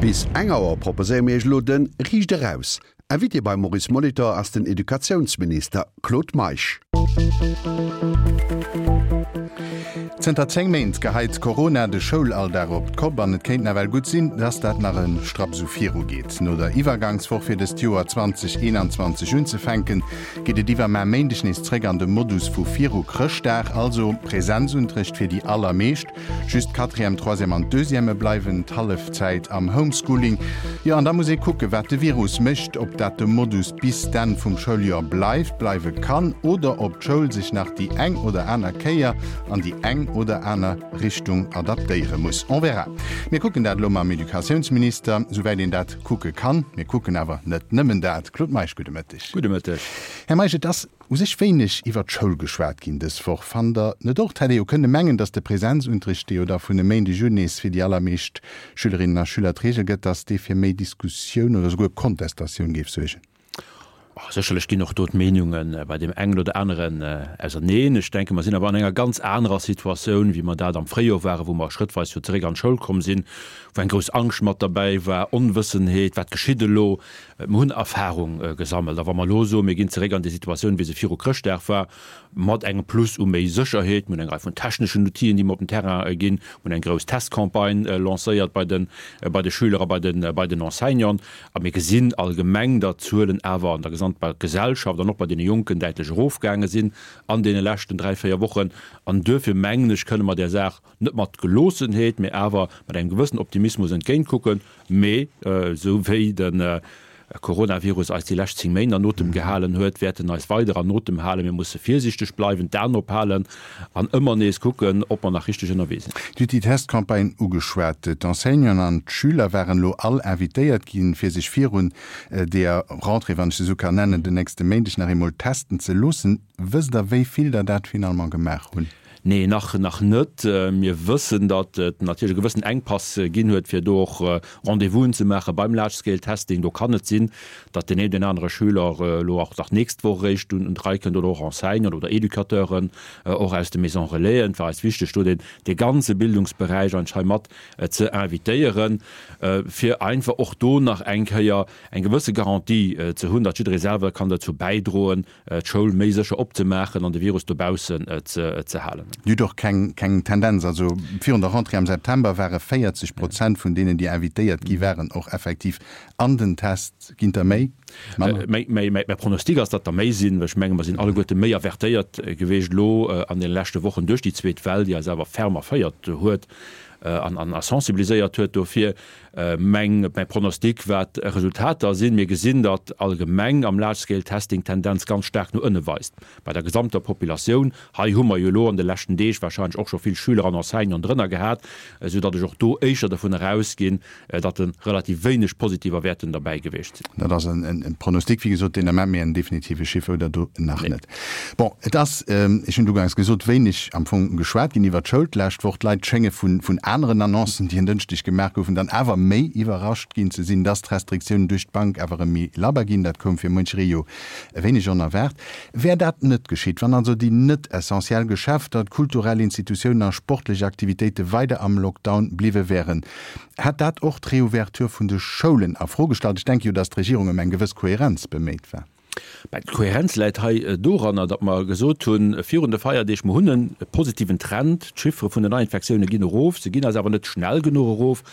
Bis eng Auer proposéiere mir Iech elo de Riicht Eraus. Invité beim Maurice Molitor ass den Educatiounsminister Claude Meisch. Zënter 10 Méint geheit Corona de Schoulalldag op d'Kopp an et kéint nawell gutt sinn, dass dat nach e Strapp esou viru geet. No der Iwwergangswoch fir dëst Joer 2021 unzefänken, geet et iwwermar Méindeg nees zréck an de Modus vu viru Chrëschtdag, also Präsenzunterrecht fir déi allermeescht. Just d'Quatrième, Troisième an d'Deuxième bleiwen d'Hallefzäit am Homeschooling. Jo, an da muss ee kucken, wat de Virus mécht, ob dat de Modus bis d'Enn vum Schouljoer bleift, bleiwe kann oder ob d'Schoul sech nach déi eng oder aner Kéier an déi eng oder aner Richtung adaptéiere muss. On verra. Mir kucken dat elo mam Educatiounsminister, souwäit een dat kucke kann. Mir kucken awer net nëmmen dat. Claude Meisch, gudde Mëtteg. Gudde Mëtteg. Här Meisch, et ass u sech wéineg iwwer d'Schoul geschwat ginn dës Woch. Fannt Der net och? Et hätt ee jo kënne mengen, datt de Präsenzunterricht, dee jo da vun e Méindeg un nees fir déi allermeescht Schülerinnen a Schüler d'Reegel gëtt, datt dee fir méi Diskussioun oder souguer Kontestatioun géif suergen. Sécherlech ginn och do d'Meenunge bei deem engen oder aneren auserneen. Ech denken, mer sinn awer an enger ganz anerer Situatioun, wéi mer dat am Fréijoer waren, wou mer schrëttweis jo zeréck an d'Schoul komm sinn, wou eng grouss Angscht mat derbäi war, Onwëssenheet, wat geschitt elo? Mer hunn Erfahrung gesammelt. A wa mer elo soen, mir ginn zeréck an déi Situatioun, wéi se viru Chrëschtdag war, mat engem Plus u méi Sécherheet, mir hunn eng Rei vun techneschen Outile, déi mer op den Terrain ginn, mir hunn eng grouss Testcampagne lancéiert bei de bei de Schüler a bei de bei den Enseignanten, a mir gesinn allgemeng, datt d'Zuelen awer an der gesamter Gesellschaft an och bei deene Jonken däitlech erofgaange sinn an deene leschten dräi, véier Wochen. An duerfir mengen ech, kënne mer där Saach net mat Geloossenheet, mee awer mat engem gewëssen Optimismus entgéintkucken. Mee esou wéi de Coronavirus eis déi lescht 10 Méint an Otem gehalen huet, wäert en eis weider an Otem halen. Mir musse virsiichteg bleiwen, d'Aen ophalen an ëmmer nees kucken, ob mer nach richteg ënnerwee sinn. Dir hutt déi Testcampagne ugeschwat. D'Enseignanten an d'Schüler waren elo all invitéiert ginn, fir sech virun deeër Rentrée, wann ech se esou kann nennen, den nächste Méindeg nach eemol testen ze loossen. Wësst Der, wéi vill der dat finalement gemaach hunn? Nee, nach nach net. Mir wëssen, datt et natierlech e gewëssen Enkpass ginn huet, fir do och Rendez-vousen ze maache beim Large-Scale-Testing. Do kann et sinn, datt deen een oder anere Schüler elo och nach d'nächst Woch eréischt un d'Rei kënnt oder och Enseignanten oder Educateuren och aus de Maisons Relaisen. Et war eis wichteg, do deen dee ganze Bildungsberäich eigentlech hei mat ze invitéieren, fir einfach och do nach eng Kéier eng gewësse Garantie ze hunn, datt jidderee selwer kann dozou bäidroen, d'Schoul méi sécher opzemaachen an de Virus dobaussen ze halen. Dir hutt och keng keng Tendenz, also virun der Rentrée am September ware 40 Prozent vun deenen, déi invitéiert gi waren, och effektiv an den Test. Ginn der méi? Manner? Mäi Pronostic ass, datt der méi sinn, well ech menge mer sinn alleguerte méi avertéiert geweecht elo an deene leschte Wochen duerch déi zweet Well, déi eis awer ferm erféiert huet an a sensibiliséiert huet dofir. Meng, mäi Pronostic, wat Resultater sinn, mir gesinn, datt allgemeng am Large-Scale-Testing d'Tendenz ganz staark no ënne weist bei der gesamter Populatioun. Hei hu mer jo elo an de leschten Deeg wahrscheinlech och scho vill Schüler an Enseignanten drënner gehat, esou datt ech och do éischter dovun erausginn, datt e relativ wéineg positiver wäerten derbäi gewiescht sinn. Dat ass e Pronostic, wéi gesot, deen Ament, mee en definitive Chiffer hutt Der do nach net. Bon, et ass, ech hunn et uganks gesot, wéineg am Fong geschwat ginn iwwert d'Schoul d'lescht Woch. D'Leit schénge vun aneren Annoncen, déi en Dënschdeg gemaach goufen, dann awer méi iwwerrascht ginn ze sinn, dass d'Restriktiounen duerch d'Bank awer erëm méi labber ginn. Dat koum fir muncheree jo e wéineg onerwaart. Wär dat net geschitt, wann also déi net essentiell Geschäfter, d'kulturell Institutiounen a sportlech Aktivitéite weider am Lockdown bliwwe wären, hätt dat och d'Reouverture vun de Schoulen a Fro gestallt? Ech denke jo, dass d'Regierung ëm eng gewëss Kohärenz beméit war. Mä d'Kohärenz läit hei doranner, datt mer gesot hunn virun de Feierdeeg, mer hunn e positiven Trend, d'Chiffere vun den Neiinfektioune ginn erof, se ginn eis awer net schnell genuch erof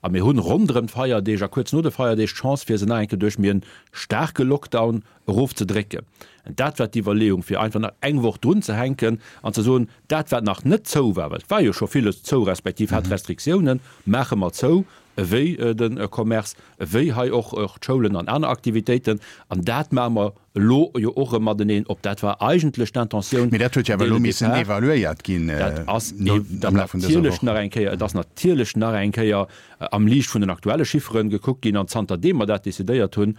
a mir hunn ronderëm d'Feierdeeg a kuerz no de Feierdeeg d'Chance fir se nach eng Kéier duerch méi e staarke Lockdown erofzedrécken. Dat war d'Iwwerleeung, fir einfach nach eng Woch drunzehänken an ze soen, dat wat nach net zou war, well et war jo scho villes zou respektiv hat Restriktiounen, maache mer zou, ewéi de Commerce, ewéi hei och d'Schoulen an aner Aktivitéiten. An dat maache mer elo jo och erëm mateneen op. Dat war eigentlech d'Intentioun Mee dat huet jo awer dès elo le missen départ. evaluéiert ginn Dat ass am Laf vun dëser natierlech Woch. nach eng Kéier, et ass natierlech nach eng Kéier am Liicht vun den aktuelle Chifferen gekuckt ginn. An zanterdeem mer dat decidéiert hunn,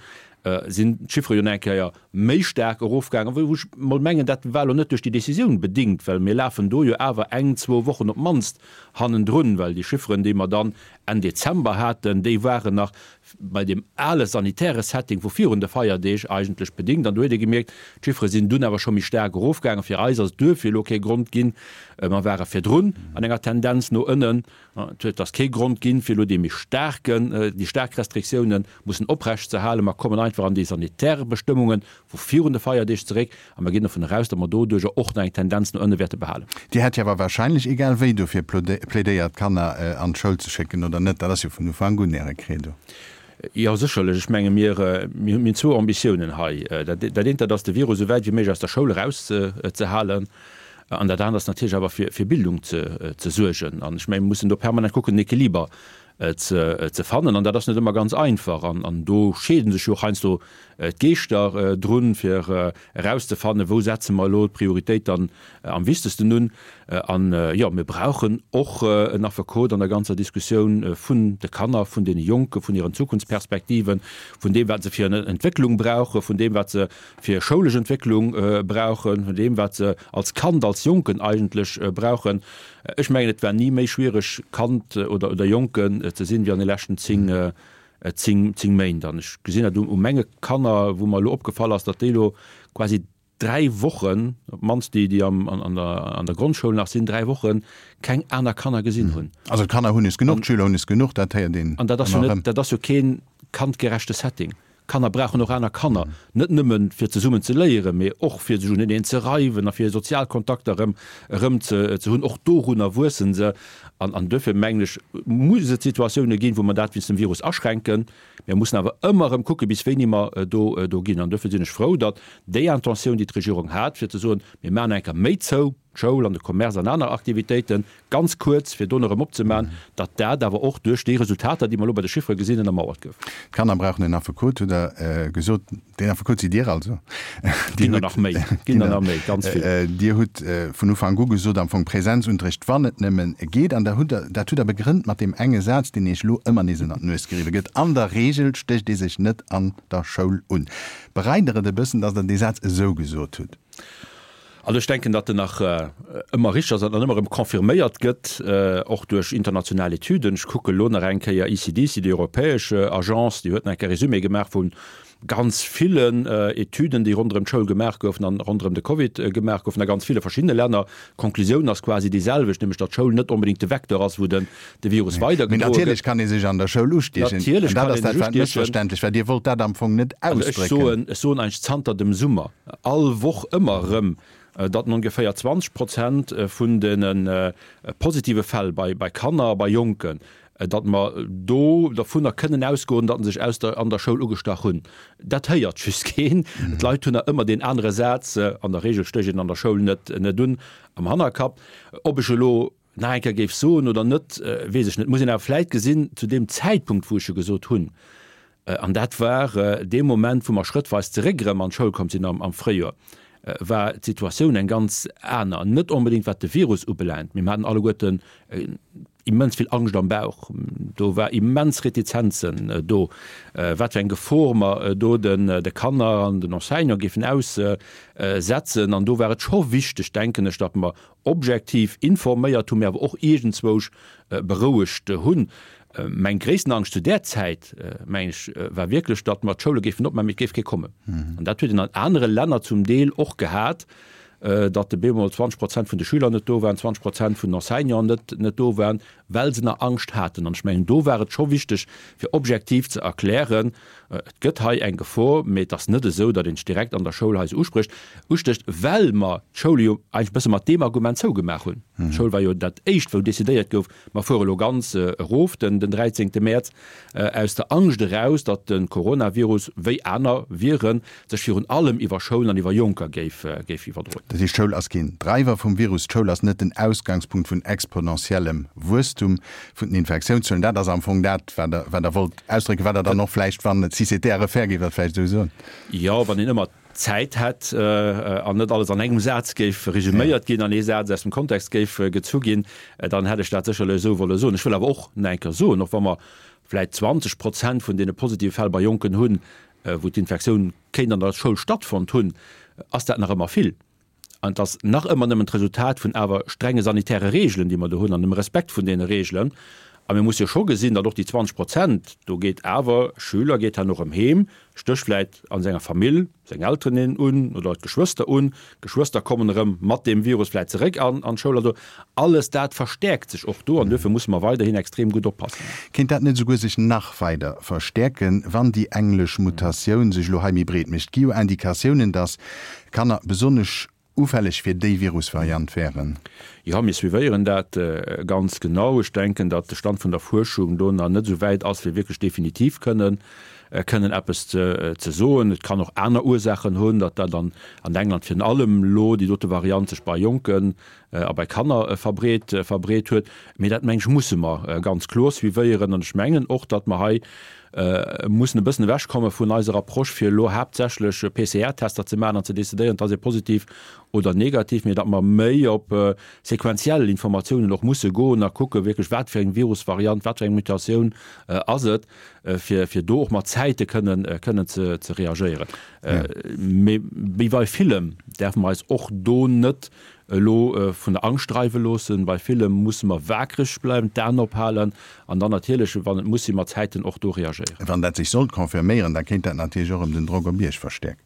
sinn d'Chiffere jo nach eng Kéier méi staark erofgaangen, wou ech mol mengen, dat war elo net duerch déi Décisioun bedingt, well mir lafen do jo awer eng, zwou Wochen op d'mannst hannendrun, well déi Chifferen, déi mer dann Enn Dezember haten, déi waren nach bei deem ale sanitäre Setting vu virun de Feierdeeg eigentlech bedingt. An do huet ee gemierkt, d'Chiffere sinn dunn awer scho méi staark erofgaangen. Fir eis ass et duerfir elo kee Grond ginn, mer ware virdrun an enger Tendenz no ënnen, Et ass kee Grond ginn, fir elo dee méi staarken, déi staark Restriktiounen mussen oprecht ze halen. Mer kommen einfach an déi sanitär Bestëmmunge vu virun de Feierdeeg zeréck a mer ginn dovun eraus, datt mer doduerjer och nach eng Tendenz no ënne wäerte behalen. Dir hätt jo awer wahrscheinlech egal wéi dofir plädéiert, d'Kanner an d'Schoul ze schécken, oder net? Dat ass jo vun Ufank un Äre Credo. Jo, sécherlech. Ech menge mir hunn zwou Ambitiounen hei. Dat eent, dat ass de Virus esou wäit wéi méiglech aus der Schoul erauszehalen. An dat anert ass natierlech awer fir fir Bildung ze ze suergen. An ech mengen, mir mussen do permanent kucken, en Equiliber ze ze fannen. An dat ass net ëmmer ganz einfach. An an do scheede sech jo och heiansdo d'Geeschter drun, fir erauszefannen, wou setze mer elo d'Prioritéit dann am wichtegsten un. An jo, mir brauchen och en Affekot an der ganzer Diskussioun vun de Kanner, vun deene Jonken, vun hiren Zukunftsperspektiven, vun deem, wat se fir en Entwécklung brauchen, vun deem, wat se fir schoulesch Entwécklung brauchen, vun deem, wat se als Kand, als Jonken eigentlech brauchen. Ech mengen, et war ni méi schwiereg, Kand oder, oder Jonken ze sinn, wéi an de leschten 10, 10, 10 Méint. An ech gesinn dat u menge Kanner, wou mer elo opgefall ass, datt déi elo quasi dräi Wochen, op d'mannst déi, déi am, an der, an der Grondschoul nach sinn, dräi Woche keng aner Kanner gesinn hunn. Also d'Kanner hunn es genuch, d'Schüler hunn es genuch, dat héiert een An dat ass jo ëmmer net, erëm. dat ass jo kee kandgerechte Setting. Kanner brauchen och aner Kanner, net nëmmen fir zesummen ze léieren, mee och fir sech uneneen ze reiwen a fir sozial Kontakter erëm erëm ze ze hunn. Och dorunner wuessen se. An an duerfir mengen ech, muss et Situatioune ginn, wou mer dat wéinst dem Virus aschränken. Mir mussen awer ëmmer erëm kucken, bis wéini mer do do ginn. An duerfir sinn ech frou, datt déi Intentioun, déi d'Regierung hat, fir ze soen, mir maachen eng Kéier méi zou, d'Schoul an de Commerce an aner Aktivitéiten, ganz kuerz, fir dono erëm opzemaachen, datt dat awer och duerch déi Resultater, déi mer elo bei de Chiffere gesinn, ënnermauert gouf. D'Kanner brauchen en Affekot, hutt Der gesot. Deen Affekot sidd Dir also. Ginn der nach méi, ginn der nach méi, ganz vill. Dir hutt vun Ufank u gesot, am Fong Präsenzunterricht, wann et nëmmen geet. An da hutt Der, dat hutt Der begrënnt mat deem enge Saz, deen Iech elo ëmmer nees ënner d'Nues geriwwe gëtt, An der Regel stécht ee sech net an der Schoul un. Bereit Der et e bëssen, datt Der dee Saz esou gesot hutt? Also ech denken, datt en nach ëmmer richteg ass an ëmmer erëm confirméiert gëtt, och duerch international Etüden. Ech kucke elo nach eng Kéier ECDC, déi europäesch Agence, déi huet nach eng Kéier Résumé gemaach vu ganz villen Etüden, déi ronderëm d'Schoul gemaach goufen an ronderëm de Covid gemaach goufen a ganz ville verschiddene Länner. D'Konklusioun ass quasi déi selwecht, nämlech datt d'Schoul net onbedéngt de Vecteur ass, wou den de Virus weidergedroe gëtt. Mee natierlech kann ee sech an der Schoul ustiechen. Natierlech kann ee sech ustiechen. Mëssverständlech war. Dir wollt dat am Fong net ausdrécken. Also ech soen, ech soen eigentlech zanter dem Summer all Woch ëmmer erëm, datt ongeféier 20 Prozent vun de positive Fäll bei Kanner a bei Jonken, datt mer do dervunner kënnen ausgoen, datt se sech aus der an der Schoul ugestach hunn. Dat héiert just keen. D'Leit hunn nach ëmmer deen anere Saz, an der Regel stécht een an der Schoul net net un, am Hannerkapp. Ob ech elo nach eng Kéier géif soen oder net, weess ech net. Muss een awer vläit gesinn, zu deem Zäitpunkt, wou ech e gesot hunn, an dat war dee Moment, wou mer schrëttweis zeréck erëm an d'Schoul komm sinn am Fréijoer, war d'Situatioun eng ganz aner. Net onbedéngt wat de Virus ubelaangt, mee mer haten alleguerten immens vill Angscht am Bauch. Do war immens Retizenzen do, wat fir eng Gefor mer do de Kanner an den Enseignante géifen aussetzen. An do war et scho wichteg, denken ech, datt mer objektiv informéiert hunn, mee awer och iergendzwousch berouegt hunn. Meng gréissten Angscht zu där Zäit, mengen ech, war wierklech, datt mer d'Schoule géifen opmaachen, mee et géif kee kommen. An dat huet een an anere Länner zum Deel och gehat, datt op eemol 20 Prozent vun de Schüler net do waren, 20 Prozent vun den Enseignanten net net do waren, well se nach Angscht haten. An ech mengen, do war et scho wichteg, fir objektiv ze erklären, Et gëtt hei eng Gefor, mee et ass net esou, datt een sech direkt an der Schoul hei esou usprécht, ustécht, well mer d'Schoule jo eigentlech e bësse mat deem Argument zougemaach hunn. D'Schoul war jo dat Éischt, wou decidéiert gouf, mer fuere elo ganz erof den 13. Mäerz, aus der Angscht eraus, datt de Coronavirus, wéi aner Viren, sech virun allem iwwer Schoulen an iwwer Jonker géif iwwerdroen. Dat heescht, d'Schoul ass keen Dreiwer vum Virus, d'Schoul ass net den Ausgangspunkt vun exponentiellem Wuesstum vun den Infektiounszuelen. Dat ass am Fong dat, wat Der, wat Der wollt ausdrécken, wat Der dann och vläicht, wann si c'était à refaire, géift Der vläicht esou soen. Jo, wann een ëmmer Zäit hätt an net alles an engem Saz géif resüméiert ginn, an ee Saz aus dem Kontext géif gezu ginn, dann hätt ech dat sécherlech esou wolle soen. Ech wëll awer och nach eng Kéier soen, och wa mer vläicht 20 Prozent vun deene positive Fäll bei Jonken hunn. wou d'Infektioun kéint an der Schoul stattfonnt hunn, ass dat nach ëmmer vill. An et ass nach ëmmer nëmmen d'Resultat vun awer strenge sanitäre Reegelen, déi mer do hunn, an dem Respekt vun deene Reegelen. A mir musse jo scho gesinn, datt och déi 20 Prozent, do geet awer Schüler geet herno erëm heem, stécht vläit a senger Famill seng Elteren een un oder d'Geschwëster un, d'Geschwëster kommen erëm mat deem Virus vläit zeréck an d'Schoul. Also alles dat verstäerkt sech och do an duerfir musse mer weiderhin extrem gutt oppassen. Kéint dat net esouguer sech nach weider verstäerken, wann déi englesch Mutatioun sech elo hei méi breet mécht? Gi jo Indikatiounen, datt Kanner besonnesch ufälleg fir déi Virusvariant wären. Jo, mir suivéieren dat ganz genau. Ech denken, datt de Stand vun der Fuerschung do nach net esou wäit ass, fir wierklech definitiv kënnen kënnen eppes ze soen. Et kann och aner Ursaachen hunn, datt dat an England virun allem elo déi dote Variant sech bei Jonken a bei Kanner verbreet verbreet huet. Mee dat, meng ech, musse mer ganz kloer suivéieren. An ech mengen och, datt mer hei mussen e bëssen ewechkomme vun eiser Approche, fir elo haaptsächlech PCR-Tester ze maachen an ze decidéieren, ass ee positiv oder negativ, mee datt mer méi op sequenziell Informatiounen och musse goen a kucke wierklech, wat fir eng Virusvariant, wat fir eng Mutatioun ass et, fir fir do och mat Zäite kënnen kënnen ze ze reagéieren. Mee wéi bei villem däerfe mer eis och do net elo vun der Angscht dreiwe loossen. Bei villem musse mer waakreg bleiwen, d'Aen ophalen an dann natierlech, wann et muss sinn, mat Zäiten och do reagéieren. Wann dat sech sollt confirméieren, da kéint dat natierlech och erëm den Drock op Iech verstäerken.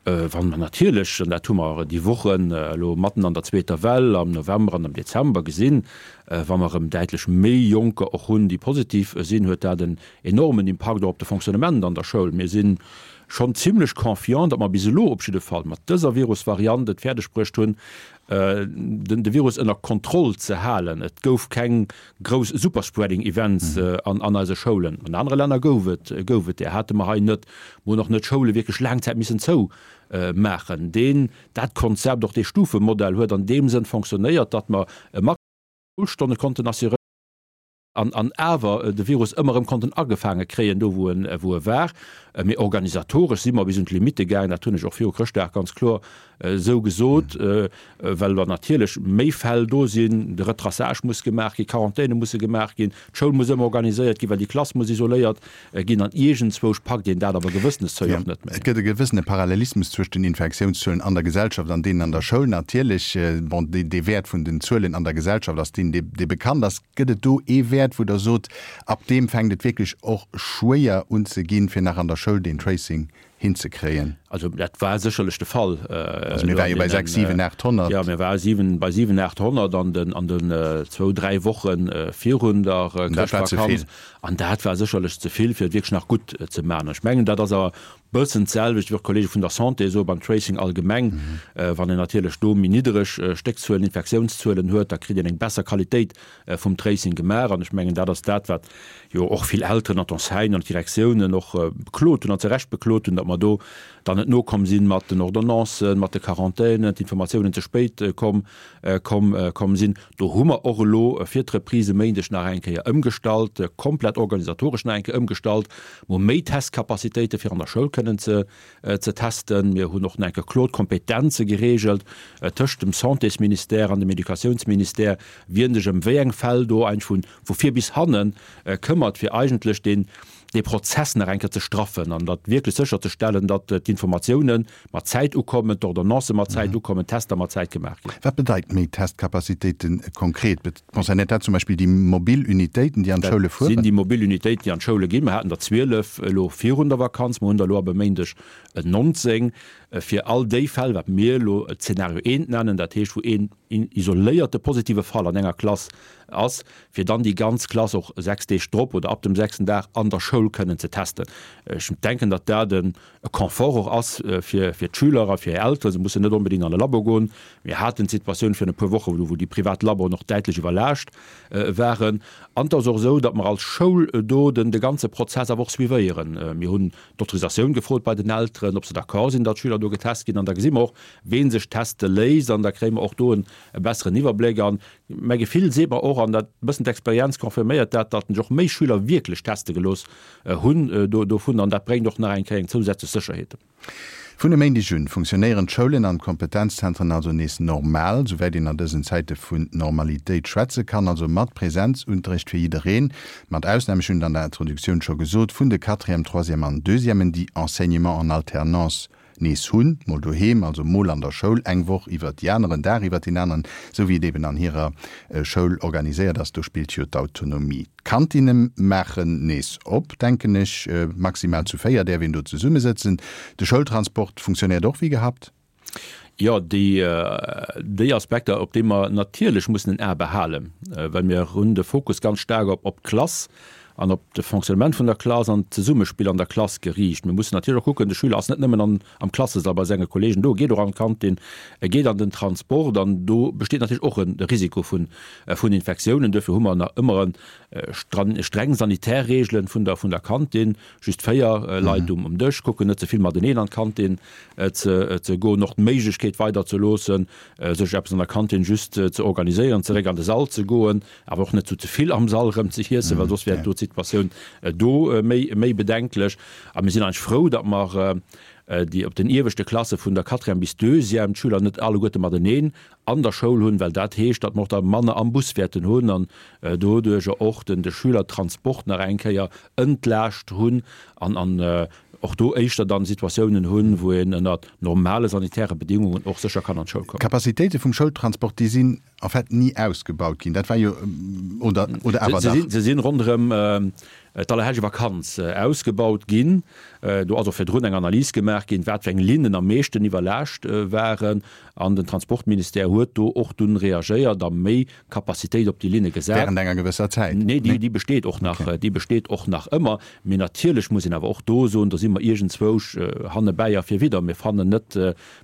Wann mer natierlech, an dat hu mer déi Wochen elo matten an der zweeter Well am November an am Dezember gesinn, wa mer erëm däitlech méi Jonker och hunn, déi positiv sinn, huet dat en enormen Impakt och op de Fonctionnement an der Schoul. Mir si schonn zimlech confiant, datt mer bis elo op jidde Fall mat dëser Virusvariant et fäerdeg bruecht hunn, de Virus ënner Kontroll ze halen. Et gouf keng grouss Superspreading Events an eise Schoulen. An anere Länner gouf et gouf et där, hate mer hei net. Mer hunn och net d'Schoule wierklech laang Zäit missen zou maachen. Deen, dat Konzept, och dee Stufemodell huet an deem Sënn fonctionnéiert, datt mer e Maximum u Schoulstonne konnten assuréieren. An awer de Virus ëmmer erëm konnten agefaange kréien, do wou en wou e war. Mee organisatoresch si mer bis un d'Limitte gaangen, dat hunn ech och viru Chrëschtdag ganz kloer esou gesot, well wa natierlech méi Fäll do sinn, de Retraçage muss gemaach ginn, Quarantäne musse gemaach ginn, d'Schoul muss ëmmer organiséiert ginn, well déi Klass muss isoléiert ginn an iergendzwousch packt een dat awer gewëssenes Zéi och net méi. Et gëtt e gewëssene Parallelismus zwëscht den Infektiounszuelen an der Gesellschaft an deenen an der Schoul. Natierlech, bon, dee Wäert vun den Zuelen an der Gesellschaft ass deen, dee bekannt ass. Gëtt et do ee Wäert, wou Der sot, ab deem fänkt et wierklech och schwéier un ze ginn, fir nach an der Schoul deen Tracing hinzekréien? Also dat war sécherlech de Fall. Also mir ware jo bei 6, 7, 800. Jo, mir ware siwen, bei 7, 800 an den, an den zwou, dräi Woche virun der Chrëschtvakanz. An dat war sécherlech ze vill, fir et wierklech nach gutt ze maachen. Ech mengen, dat ass awer e bëssen d'selwecht, wéi och d'Kollege vun der Santé soe beim Tracing allgemeng. Wann een natierlech do méi niddereg Stéckzuelen, Infektiounszuelen huet, da kritt een eng besser Qualitéit vum Tracing gemaach. An ech mengen, dat ass dat, wat jo och vill Elteren an d'Enseignanten an d'Direktiounen och beklot hunn an zu Recht beklot hunn, datt mer do dann net nokomm sinn mat den Ordonnancen, mat de Quarantänen, d'Informatiounen ze spéit komm, komm, komm sinn. Do hu mer och elo fir d'Reprise e Méindeg nach eng Kéier ëmgestallt, komplett organisatoresch nach eng Kéier ëmgestallt. Mer hu méi Testcapacitéite fir an der Schoul kënnen ze, ze testen. Mir hunn och nach eng Kéier kloer d'Kompetenze geregelt tëscht dem Santésministère an dem Educatiounsministère, wien sech ëm wéi eng Fäll do eigentlech vu, vu vir bis hanne këmmert, fir eigentlech deen, dee Prozess nach eng Kéier ze straffen an dat wierklech sécherzestellen, datt d'Informatiounen mat Zäit ukommen, d'Ordonnancë mat Zäit ukommen, d'Tester mat Zäit gemaach ginn. Wat bedeit méi Testcapacitéite konkret? Concernéiert dat zum Beispill déi mobil Unitéiten, déi an d'Schoule fueren? Dat sinn déi mobil Unitéiten, déi an d'Schoule ginn. Mer haten der 12 elo virun der Vakanz, mer hunn der elo ab e Méindeg 19, fir all déi Fäll, wat mir elo Zeenario eent nennen, dat heescht, wou een isoléierte positive Fall an enger Klass ass, fir dann déi ganz Klass och 6 Deeg drop oder ab dem sechsten Dag an der Schoul kënnen ze testen. Ech denken, datt dat e Confort och ass fir d'Schüler a fir hir Elteren. Se mussen net onbedéngt an e Labo goen. Mir haten d'Situatioun virun e puer Woche wou déi privat Laboen och däitlech iwwerlaascht waren. An et ass och esou, datt mer als Schoul do den de ganze Prozess awer och suivéieren. Mir hunn d'Autorisatioun gefrot bei den Elteren, ob se d'accord sinn, datt d'Schüler do getest ginn. An da gesi mer och, wee sech teste léisst. An da kréie mer och do e besseren Iwwerbléck. An Mäi Gefill seet mer och, an dat e bëssen d'Experienz confirméiert dat, datt sech och méi Schüler wierklech teste gelooss hunn dovun, an dat bréngt och nach eng Kéier eng zousätzlech Sécherheet. Vun e Méindeg un funktionéieren d'Schoulen an d'Kompetenzzentren also nees normal, souwäit een an dësen Zäite vun Normalitéit schwätze kann, also mat Präsenzunterrecht fir jiddereen, mat Ausnam, ech hunn et an der Introduktioun scho gesot, vun de Quatrième, Troisième an Deuxièmen, déi Enseignement en alternance nees hunn, mol doheem, also mol an der Schoul, eng Woch iwwert déi aner, en Dag iwwert deen aneren, esou wéi et eben an hirer Schoul organiséiert ass. Do spillt jo d'Autonomie. D'Kantinne maachen nees op, denken ech. Maximal zu 4 däerf een do zesummesëtzen. De Schoultransport funktionéiert och wéi gehabt. Jo, déi, déi Aspekter, op déi mer natierlech mussen en A behalen, well mir hunn de Fokus ganz staark op, op d'Klass an op de Fonctionnement vun der Klass an d'Zesummespill an der Klass geriicht. Mir mussen natierlech och kucken, de Schüler ass net nëmmen an, am Klassesall bei senge Kollegen do, e geet och an d'Kantin, e geet an den Transport an do besteet natierlech och e Risiko vun, vun Infektiounen. Duerfir hu mer nach ëmmer e streng sanitär Reegelen vun der, vun der Kantin. Just 4 Leit um Dësch, kucken net ze vill mateneen an d'Kantin ze goen, och d'Méiglechkeet weider ze loossen, sech eppes an der Kantin just ze organiséieren, zeréck an de Sall ze goen, awer och net zu ze vill am Sall erëm ze iessen, well soss wär do d'Situatioun do méi bedenklech. A mir sinn eigentlech frou, datt mer déi op den ieweschte Klasse vun der Quatrième bis Deuxième d'Schüler net alleguerte mateneen an der Schoul hunn, well dat heescht, datt mer och da manner am Bus wäerten hunn an doduercher och den de Schülertransport nach eng Kéier entlaascht hunn an an och do éischter dann Situatiounen hunn, wou een ënner normale sanitäre Bedingungen och sécher kann an d'Schoul kommen. D'Capacitéite vum Schoultransport, déi sinn en fait ni ausgebaut ginn. Dat war jo, oder, oder awer dach? Se sinn ronderëm d'Allerhellegevakanz ausgebaut ginn. Do ass och virdrun eng Analys gemaach ginn, wat fir eng Linnen am meeschten iwwerlaascht waren. An den Transportministère huet do och dunn reagéiert a méi Capacitéit op déi Linne gesat. Während enger gewësser Zäit? Nee, déi besteet och nach, déi besteet och nach ëmmer. Mee natierlech muss een awer och do soen, do si mer iergendzwousch hannebäi a virwidder. Mir fannen net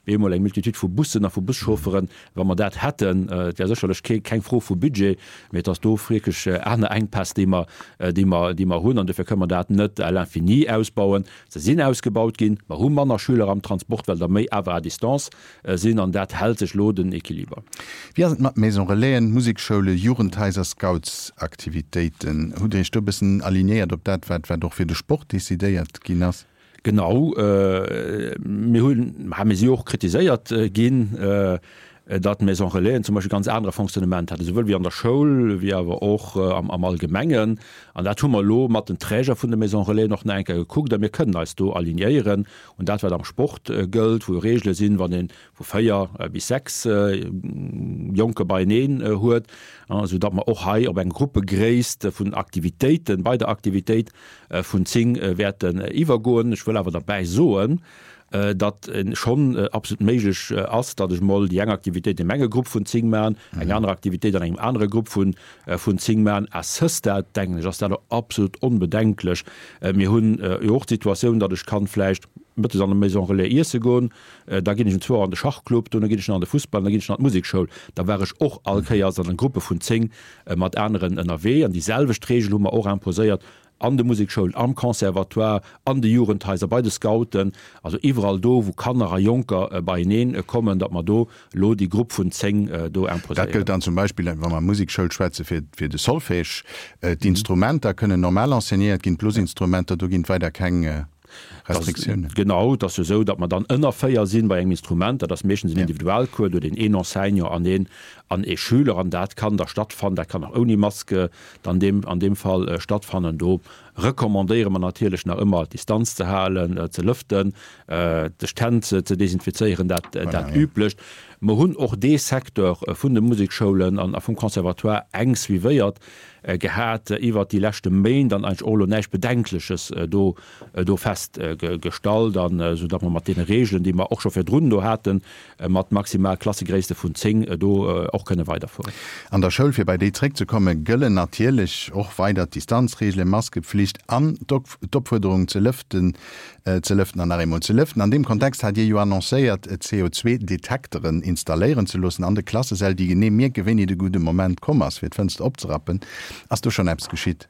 bemol eng Multitude vu Bussen a vu Buschaufferen. Wa mer dat hätten, et wär sécherlech kee, keng Fro vu Budget, mee et ass do wierklech aner Enkpäss, déi mer, déi mer, déi mer hunn. An dofir kënnen mer dat net à l'infini ausbauen. Se sinn ausgebaut ginn. Mer hu manner Schüler am Transport, well der méi awer à distance sinn an dat hält sech elo den Equiliber. Wéi ass et mat Maison Relaisen, Musekschoule, Jugendhaiser, Scoutsaktivitéiten? Hutt Dir Iech do e bëssen alignéiert op dat, wat wat och fir de Sport decidéiert ginn ass? Genau, mir hunn, mir si jo och kritiséiert ginn, datt d'Maison Relaisen zum Beispill ganz anere Fonctionnement haten, esouwuel wéi an der Schoul, wéi awer och am Allgemengen. An dat hu mer elo mat den Träger vun de Maison Relaisen och nach eng Kéier gekuckt a mir kënnen eis do alignéieren un dat, wat am Sport gëllt, wou jo Regele sinn, wann ee vu 4 bis 6 Jonke beieneen huet, esou datt mer och hei op eng Gruppegréisst vun Aktivitéiten, bei der Aktivitéit vun 10 wäerten iwwergoen. Ech wëll awer derbäi soen, datt schonn absolut méiglech ass, datt ech mol déi eng Aktivitéit an engem Grupp vun 10 maachen, eng aner Aktivitéit an engem anere Grupp vun 10 maachen. À ce stade, denken ech, ass dat och absolut onbedenklech. Mir hunn jo och d'Situatioun, datt ech kann vläicht mëttes an der Maison Relais iesse goen, da ginn ech um zwou Auer an de Schachclub, dono ginn ech nach an de Fussball an da ginn ech nach an d'Musekschoul. Da war ech och all Kéiers an Gruppe vun 10 mat aneren ënnerwee. An déi selwecht Reegel hu mer och imposéiert an de Musekschoulen, am Conservatoire, an de Jugendhaiser, bei de Scouten, also iwwerall do, wou Kanner a Jonker beieneen kommen, datt mer do elo déi Grupp vun 10 do Dat imposéieren. gëllt dann zum Beispill, wa mer Musekschoul schwätzen, fir, fir de Solfège. D'Instrumenter kënnen normal enseignéiert ginn, d'Blosinstrumenter, do ginn et weider keng Restriktiounen. Genau, et ass jo esou, datt mer dann ënner 4 sinn bei engem Instrument. Dat ass meeschtens en Individualcours, do huet een een Enseignant an een, an ee Schüler an dat kann da stattfannen. Dat kann och ouni Maske dann deem, an deem Fall stattfannen. Do recommandéiere mer natierlech nach ëmmer, d'Distanz ze halen, ze lëften, sech d'Hänn ze desinfizéieren, dat, dat Üblecht. Mer hunn och dee Secteur vun de Musekschoulen an a vum Conservatoire enk suivéiert gehat iwwert déi leschte Méint an eigentlech och elo näischt Bedenkleches do, do festgestallt an esou datt mer mat deene Regeln, déi mer och scho virdrun do haten, mat maximal Klassegréisste vun 10 do och kënne weiderfueren. An der Schoul, fir bei déi zréckzekommen, gëllen natierlech och weider d'Distanzreegelen, Maskepflicht an d'Opfuerderung ze lëften, ze lëften an nach eemol ze lëften. An deem Kontext hat Dir jo annoncéiert, CO2-Detekteren installéieren ze loossen an de Klassesäll, déi genee mierken, wéini de gudde Moment komm ass, fir d'Fënster opzerappen. Ass do schonn eppes geschitt?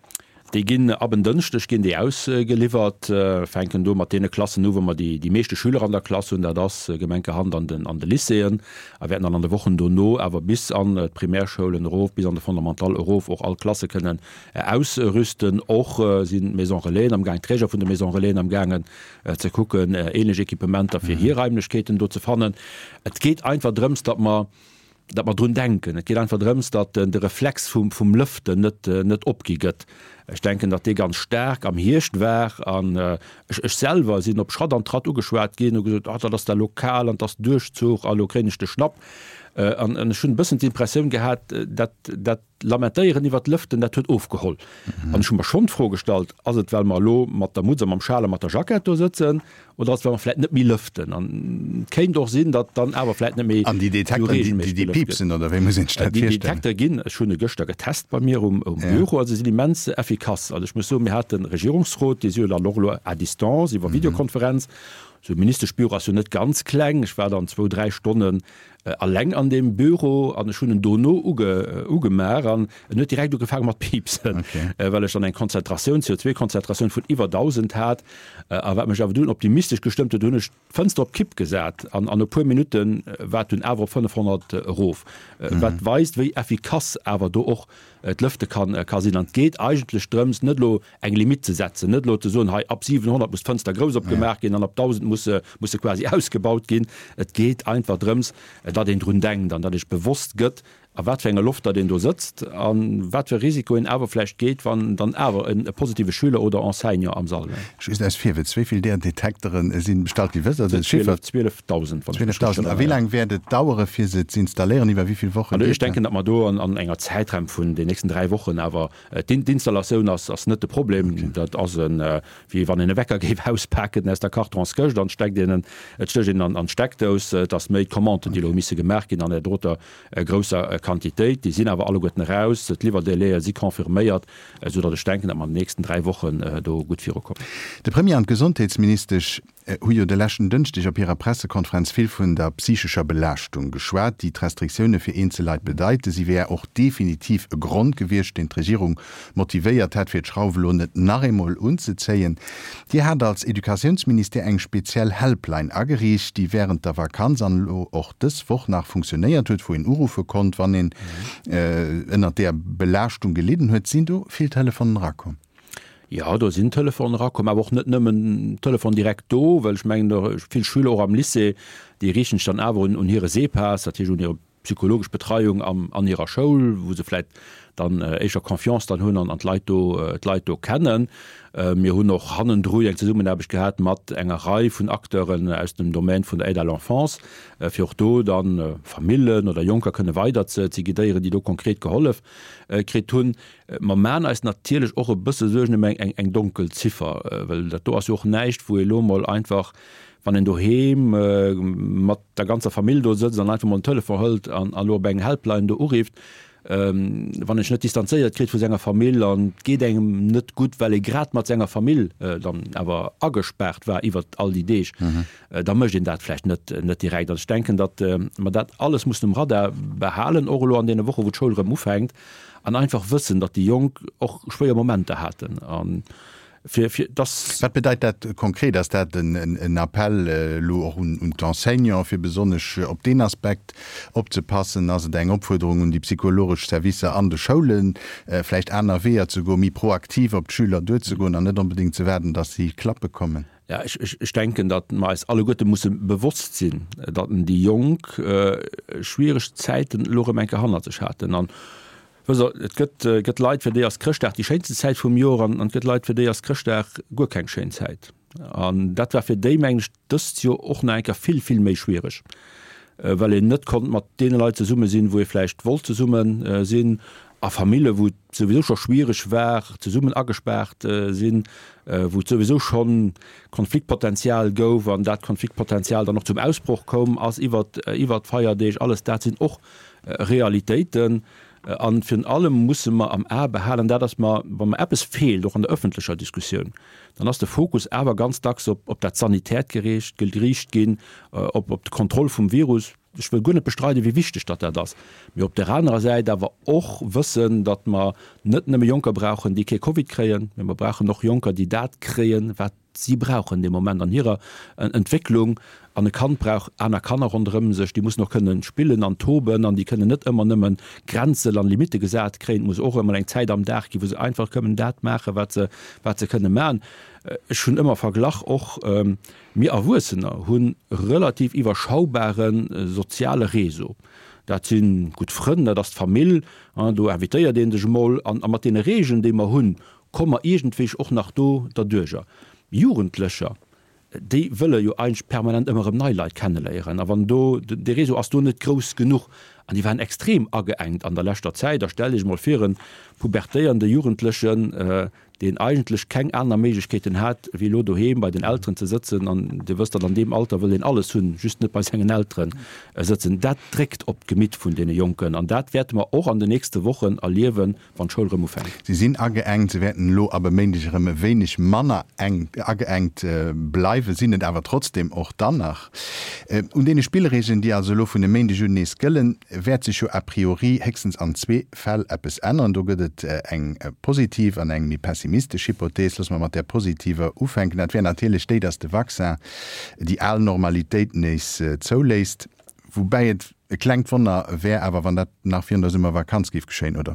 Déi ginn ab en Dënschdeg ginn déi ausgeliwwert, fänken do mat deene Klassen u wou mer déi déi meeschte Schüler an der Klass hunn, dat ass gemenkerhand an den an de Lycéeën, a wäerten dann an de Wochen dono awer bis an d'Primärschoulen erof, bis an de Fondamental erof och all Klasse kënnen ausrüsten. Och sinn d'Maisons Relaisen am gaang, d'Träger vun de Maisons Relaisen am gaangen ze kucken ähnlech Equipementer fir hir Raimlechkeeten do ze fannen. Et geet einfach drëms, datt mer datt mer drun denken. Et geet einfach drëms, datt de Reflex vum, vum Lëften net, net opgi gëtt. Ech denken, datt dee ganz staark am Hierscht war an ech, ech selwer sinn op Schratt an Tratt ugeschwat ginn, hu gesot, ah, dat ass da lo kal an 't ass Duerchzuch a lo kréien ech de Schnapp. An ech hunn e bëssen d'Impressioun gehat, dat, dat Lamentéieren iwwert d'Lëften, dat huet ofgeholl. An ech hu mer schonn d'Fro gestallt, Ass et, well mer elo mat der Mutz a mam Schal a mat der Jackett do sëtzen, oder ass et, well mer vläicht net méi lëften? An et kéint och sinn, datt dann awer vläicht net méi An déi esou Detekteren, déi, reegelméisseg déi gelëft gëtt. piepsen, oder wéi muss een sech dat Déi virstellen? Detektere ginn, ech hunn e gëschter getest bei mir um Büro, also se sinn immens effikass. Also ech muss soen, mir hate Regierungsrot, dee si jo dann och elo à distance iwwer Videokonferenz. Esou e Ministeschbüro ass jo net ganz kleng. Ech war dann zwou, dräi Stonnen Alleng an deem Büro an ech hunn en dono ugemaach an en huet direkt ugefaange mat piipsen, well ech dann eng Konzentratioun, CO2-Konzentratioun vun iwwer 1.000 hat. A wat mech awer dunn optimistesch gestëmmt huet, hunn ech d'Fënster op Kipp gesat an an e puer Minutte war et dunn awer op 500 erof, wat weist, wéi effikass awer do och d'Lëfte ka sinn. An et geet eigentlech drëms, net elo eng Limitt ze setzen, net elo ze soen, hei ab 700 muss d'Fënster grouss opgemaach ginn an ab 1.000 muss se, muss se quasi ausgebaut ginn. Et geet einfach drëms, datt een drun denkt an datt ee sech bewosst gëtt, a wat fir enger Loft datt een do sëtzt a wat fir e Risiko een awer vläicht geet, wann dann awer e positive Schüler oder Enseignant am Sall wär. Just aus Virwëtz, Wéi vill där Detekteren sinn bestallt ginn? Wësst Der den Chiffer? 12.000, wann ech mech richteg 12.000. A wéi laang wäert et dauere fir se z'installéieren? Iwwer wéi vill Woche Also ech geet dat? denken, datt mer do an enger Zäitraum vun den nächsten 3 Wochen awer D'Installatioun ass net de Problem. Dat ass wéi wann een e Wecker géif auspaken aus der Kartonskëscht an steckt een en, et stécht een an d'Steckdous. Et ass méi d'Commanden, déi elo hu misse gemaach ginn an där doter grousser Quantitéit. Déi sinn awer alleguerten eraus. D'Liwwerdélaië si confirméiert, esou datt ech denken, datt mer an den nächsten 3 Wochen do gutt virukommen. De Premier an d'Gesondheetsministesch hu jo de leschten Dënschdeg op hirer Pressekonferenz vill vun der psychescher Belaaschtung geschwat, déi d'Restriktioune fir eenzel Leit bedeiten. Si wär och definitiv e Grond gewiescht, deen d'Regierung motivéiert hätt, fir d'Schrauf elo net nach eemol unzezéien. Dir hat als Educatiounsministère eng speziell Helpline ageriicht, déi wärend der Vakanz an elo och dës Woch nach funktionéiert huet, wou een uruffe konnt, wann een ënnert där Belaaschtung gelidden huet. Sinn do vill Telefonen erakomm? Jo, do sinn Telefonen erakomm, awer och net nëmmen Telefon direkt do, well ech mengen, vill Schüler och am Lycée, déi riichten sech dann awer un hire SEPAS, dat heescht un hir psychologesch Betreiung an hirer Schoul, wou se vläicht dann éischer Confiance dann hunn an d'Leit do, d'Leit do kennen. Mir hunn och hannendru eng Zesummenaarbecht gehat mat enger Rei vun Acteuren aus dem Domaine vun der Aide à l'enfance, fir och do dann Famillen oder Jonker kënne weider ze guidéieren, déi do konkret gehollef kritt hunn. Mer maachen eis natierlech och e bësse Suergen ëm eng eng donkel Ziffer, well dat do ass jo och näischt, wou ee lo mol einfach, wann een doheem mat der ganzer Famill do sëtzt an einfach mol den Telefon hëlt an elo op eng Helpline do urifft, wann een sech net distanzéiert kritt vu senger Famill an et geet engem net gutt, well ee grad mat senger Famill dann awer agespaart war iwwert all déi Deeg, da mécht een dat vläicht net net direkt. Also ech denken, datt mer dat alles mussen um Radar behalen, och elo an deene Woche wou d'Schoul erëm ufänkt, An einfach wëssen, datt déi Jonk och schwéier Momenter haten a fir, fir dass. Wat bedeit dat konkret? Ass dat en Appell elo och un d'Enseignants, fir besonnesch op deen Aspekt opzepassen? Ass et eng Opfuerderung un déi psychologesch Servicer an de Schoulen, vläicht aner Weeër ze goen, méi proaktiv op d'Schüler duerzegoen an net onbedéngt ze waarden, datt si klappe kommen? Ja, ech, ech, ech denken, datt mer eis alleguerte musse bewosst sinn, datt déi Jonk schwiereg Zäiten elo erëm eng Kéier hannert sech haten. An wësst Der, et gëtt, gëtt Leit, fir déi ass Chrëschtdag déi schéinsten Zäit vum Joer an et gëtt Leit, fir déi ass Chrëschtdag guer keng schéin Zäit. An dat war fir déi, mengen ech, dëst Joer och nach eng Kéier vill, vill méi schwiereg, well een net konnt mat deene Leit zesumme sinn, wou ee vläicht wollt zesumme sinn, a Famille, wou et souwisou scho schwiereg war, zesummen agespaart sinn, wou et souwisou scho Konfliktpotenzial gouf an dat Konfliktpotenzial dann och zum Ausbroch koum ass iwwert iwwert d'Feierdeeg. Alles dat sinn och Realitéiten. A virun allem musse mer am A behalen, dat ass mer, wa mer eppes feelt, och an der ëffentlecher Diskussioun, dann ass de Fokus awer ganz dacks op op dat Sanitäert geriicht ginn, op op d'Kontroll vum Virus. Ech wëll guer net bestreiden, wéi wichteg datt dat ass, mee op där anerer Säit awer och wëssen, datt mer net nëmme Jonker brauchen, déi kee Covid kréien, mee mer brauchen och Jonker, déi dat kréien, wat si brauchen dee Moment an hirer Entwécklung. An e Kand brauch aner Kanner ronderëm sech, déi mussen och kënnen spillen an toben an déi kënnen net ëmmer nëmme Grenzen an Limitte gesat kréien. Et muss och emol eng Zäit am Dag ginn, wou se einfach kënnen dat maachen, wat se, wat se kënne maachen. Ech hunn ëmmer verglach och, Mir Erwuessener hu relativ iwwerschaubare soziale Réseau. Dat si gutt Frënn, dat ass d'Famill, do invitéiert ee sech emol. An mat deene Regeln, déi mer hunn, komme mer iergendwéi och nach do derduercher. Jugendlecher, déi wëlle jo eigentlech permanent ëmmer erëm nei Leit kenneléieren. A wann do, dee Réseau ass do net grouss genuch. An déi waren extrem ageengt an der leschter Zäit. A stellt Iech emol vir, e pubertéierende Jugendlechen, deen eigentlech keng aner Méiglechkeeten hat, wéi elo doheem bei den Elteren ze sëtzen, an Dir wësst, datt an deem Alter wëll een alles hunn, just net bei sengen Eltere sëtzen. Dat dréckt op d'Gemitt vun deene Jonken an dat wäerte mer och an den nächste Wochen erliewen, wann d'Schoul erëm ufänkt. Si sinn ageengt, se wäerten elo ab e Méindeg erëm e wéineg manner enk ageengt bleiwen, sinn et awer trotzdeem och dann nach. Un deene Spillregeln, déi also elo vun e Méindeg un nees gëllen, wäert sech jo a priori héchstens an zwee Fäll eppes änneren. Do gëtt et eng positiv an eng méi pessimistesch Hypothees. Loosse mer mat där positiver ufänken. Dat wär natierlech déi, datt de Vaccin déi al Normalitéit nees zouléisst. Woubäi et e klengt Wonner wär awer, wann dat nach virun der Summervakanz géif geschéien, oder?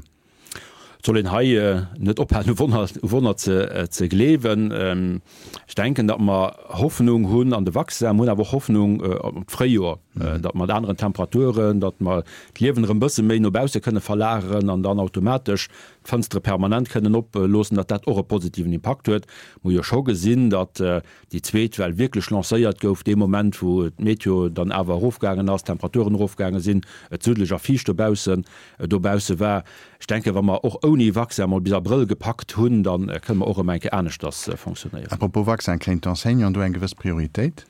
Et soll een hei net ophalen, u Wonner ze gleewen. Ech denken, datt mer Hoffnung hunn an de Vaccin. Mer hunn awer och Hoffnung op d'Fréijoer, datt mat aneren Temperaturen, datt mer d'Liewen erëm e bësse méi no bausse kënne verlageren an dann automatesch d'Fënstere permanent kënnen oploossen, datt dat och e positiven Impakt huet. Mer hu jo scho gesinn, datt déi zweet Well wierklech lancéiert gouf dee Moment, wou d'Meteo dann awer erofgaangen ass, d'Temperaturen erofgaange sinn, et suddeleg a fiicht dobaussen dobausse war. Ech denken, wa mer och ouni Vaccin mol bis Abrëll gepackt hunn, da kënne mer och erëm eng Kéier aneschters fonctionnéieren. À propos Vaccin, kréien d'Enseignanten do eng gewëss Prioritéit?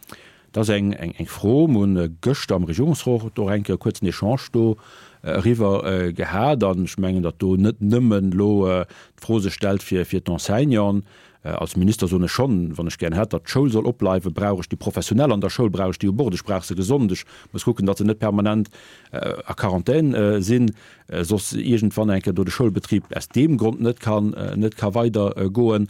Dat ass eng Fro. Mer hunn gëschter am Regierungsrot och eng Kéier e kuerzen Echange do eriwwer gehat. An ech mengen, datt do net nëmmen elo d'Fro sech stellt fir d'Enseignanten. Als Minister soen ech schonn, wann ech gären hätt, datt d'Schoul soll opbleiwen, brauch ech déi Professionell an der Schoul, brauch ech déi u Bord, ech brauch se gesond, ech muss kucken, datt se net permanent a Quarantän sinn, soss iergendwann eng Kéier do de Schoulbetrib aus deem Grond net kann, net ka weider goen.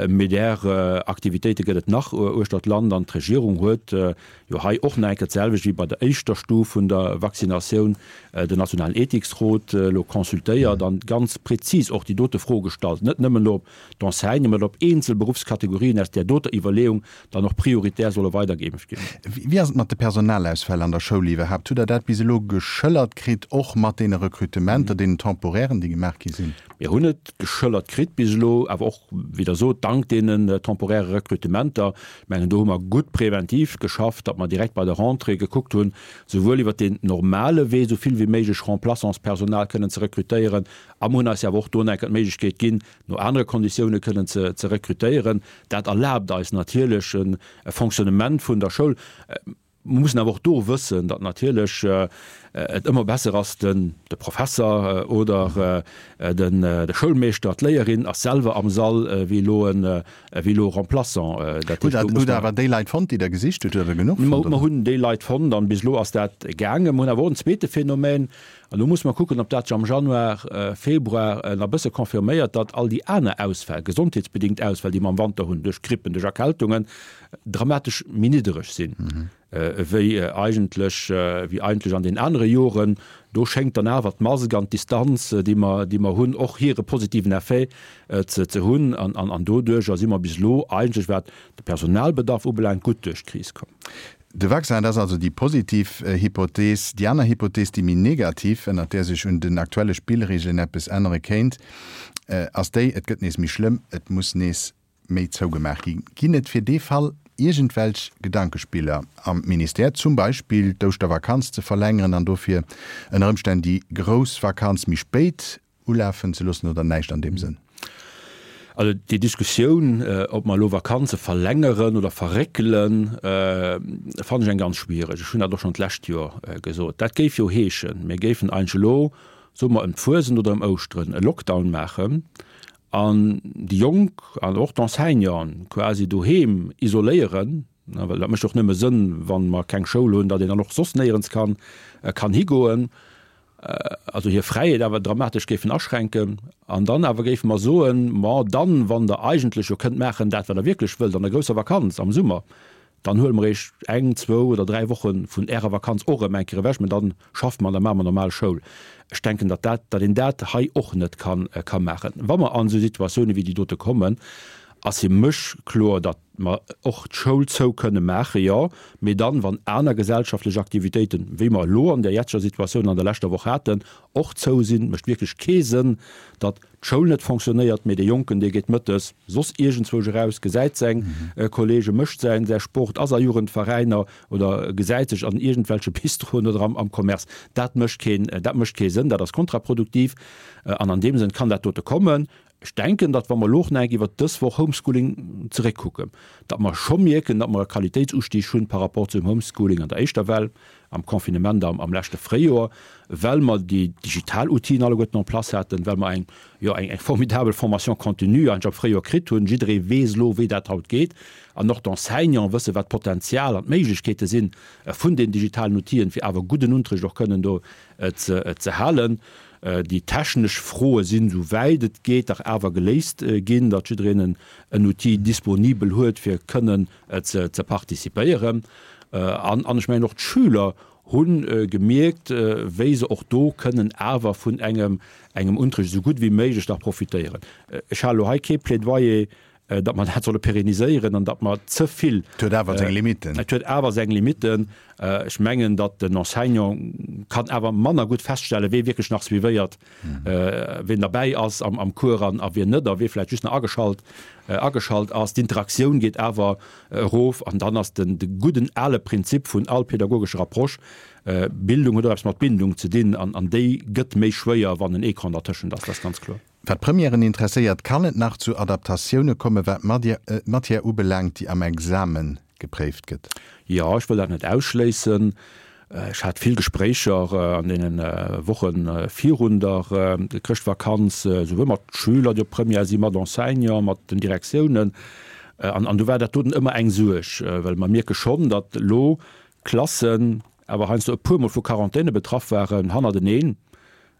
Mee där Aktivitéite gëtt et nach uechter d'Land an d'Regierung huet jo hei och nach eng Kéier d'selwecht wéi bei der éischter Stuf vun der Vaccinatioun den nationalen Ethiksrot elo consultéiert an ganz prezis och déi dote Fro gestallt, net nëmmen elo op d'Enseignement op eenzel Beruffskategorien aus där doter Iwwerleeung dann och prioritär solle weidergeimpft ginn. Wéi ass et mat de Personalausfäll an der Schoul iwwerhaapt? Hutt Der dat bis elo geschëllert kritt, och mat deene Recrutementer, deenen temporairen, déi gemaach gi sinn? Mir hunn et geschëllert kritt bis elo, awer och, wéi Der sot, dank deenen temporäre Recrutementer. Ech mengen, do hu mer gutt präventiv geschafft, datt mer direkt bei der Rentrée gekuckt hunn, souwuel iwwert deen normale Wee esou vill wéi méiglech Remplaçantspersonal kënnen ze rekrutéieren, a mer hunn eis jo awer och do nach eng Kéier d'Méiglechkeet ginn, no anere Konditioune kënnen ze rekrutéieren. Dat erlaabt eis natierlech e Fonctionnement vun der Schoul. Mer mussen awer och do wëssen, datt natierlech et ëmmer besser ass, de Professer oder de Schoulmeeschter, d'Léierin ass selwer am Sall wéi elo e Remplaçant. Dat heescht, do muss mer. Hutt Der awer déi Leit fonnt, déi Der gesicht hutt? Hutt Der der genuch fonnt? Mer hunn déi Leit fonnt an bis elo ass dat gaangen. Mer hunn awer och en zweete Phänomen, An elo musse mer kucken, ob dat sech am Januar, Februar nach e bësse confirméiert, datt all déi aner Ausfäll, gesondheetsbedingt Ausfäll, déi mer am Wanter hunn, duerch Grippen, duerch Erkältungen, dramatesch méi niddereg sinn, wéi eigentlech, wéi eigentlech an den anere Joren. Do schéngt dann awer d'Mask an d'Distanz, déi mer, déi mer hunn, och hire positiven Effet ze, ze hunn. An, an, an doduercher si mer bis elo eigentlech, wat de Personalbedarf ubelaangt, gutt duerch d'Kris komm. De Vaccin, dat ass also déi positiv Hypothees. Déi aner Hypothees, déi méi negativ, ënnert där sech un den aktuelle Spillreegelen eppes ännere kéint, ass déi, et gëtt nees méi schlëmm, et muss nees méi zougemaach ginn. Ginn et fir dee Fall iergendwelch Gedankespiller am Ministère, zum Beispill d'Ouschtervakanz ze verlängeren an dofir ënner Ëmstänn déi grouss Vakanz méi spéit Ulafen ze loossen oder näischt an deem Sënn? Also déi Diskussioun, ob mer elo Vakanze verlängeren oder verréckelen, fannen ech eng ganz schwiereg. Ech hunn dat och schonn d'lescht Joer gesot. Dat géif jo heeschen, mir géifen eigentlech elo, soe mer ëm d'Fuesent oder ëm Ouschteren, e Lockdown maachen an déi Jonk an och d'Enseignanten quasi doheem isoléieren. Well dat mécht och nëmme Sënn, wa mer keng Schoul hunn, datt een dann och soss néierens kann, kann higoen. Also hir Fräiheet awer dramatesch géifen aschränken. An dann awer géife mer soen, Ma dann, wann Der eigentlech jo kënnt maachen dat, wat Der wierklech wëllt an der grousser Vakanz am Summer, dann huele mer Iech eng, zwou oder dräi Woche vun Ärer Vakanz och erëm eng Kéier ewech, mä dann schaffe mer an da maache mer normal Schoul. Ech denken, datt dat, datt een dat hei och net kann, ka maachen. Wa mer an esou Situatioune wéi déi dote kommen, ass fir mech kloer, datt mer och d'Schoul zou kënne maachen, jo, mee dann, wann aner gesellschaftlech Aktivitéiten, wéi mer elo an där jetzeger Situatioun an der leschter Woch haten, och zou sinn. Et mécht wierklech kee Sënn, datt d'Schoul net fonctionnéiert, mee dee Jonken, dee geet mëttes soss iergendzwousch eraus, gesäit seng Kollegen, mécht säin säi Sport, ass a Jugendveräiner oder gesäit sech an iergendwelche Bistroen oder am Commerce. Dat mécht keen, dat mécht kee Sënn, dat ass kontraproduktiv. An an deem Sënn kann dat dote kommen. Ech denken, datt wa mer elo och nach eng Kéier iwwert dës Woch Homeschooling zeréckkucken, datt mer scho mierken, datt mer e Qualitéitsustieg hunn par rapport zum Homeschooling an der éischter Well, am Confinement am am leschte Fréijoer, well mer déi digital Outile alleguerten en place haten, well mer eng, jo, eng eng formidabel Formation continue eigentlech am Fréijoer kritt hunn. Jidderee weess elo, wéi dat haut geet. An och d'Enseignanten wëssen, wat d'Potenzial an d'Méiglechkeete sinn vun den digitalen Outile, fir awer gudden Unterricht och kënnen do ze ze halen. Déi technesch Froe sinn, esou wäit et geet, dach awer geléist ginn, datt jiddereen en Outil disponibel huet, fir kënnen ze participéieren. An ech mengen, och d'Schüler hu gemierkt, wéi se och do kënnen awer vun engem Unterricht esou gutt wéi méiglech nach profitéieren. Ech halen elo hei kee Plädoyer datt mer dat solle pérenniséieren an datt mer ze vill. Et huet awer seng Limitten. Et huet awer seng Limitten. Ech mengen, datt den Enseignant kann awer manner gutt feststellen, wee wierklech nach suivéiert, ween derbäi ass am Cours an a wien net a wee vläicht just nach ageschalt, ageschalt ass. D'Interaktioun geet awer erof an dann ass den, de gudden ale Prinzip vun all pädagogescher Approche, Bildung huet och eppes mat Bindung ze dinn an, an déi gëtt méi schwéier, wann en Ecran dertëschent ass. Dat ass ganz kloer. Wat d'Premièren interesséiert, kann et nach zu Adaptatioune komme wat d'Matière ubelaangt, déi am Exame gepréift gëtt? Jo, ech wëll dat net ausschléissen. Ech hat vill Gespréicher an deene Woche virun der Chrëschtvakanz, souwuel mat Schüler, déi op Première sinn, mat Enseignanten, mat den Direktiounen. An do war dat doten ëmmer eng Suerg, well mer mierke schonn, datt elo Klassen awer heiansdo e puermol vu Quarantäne betraff waren hannerteneen,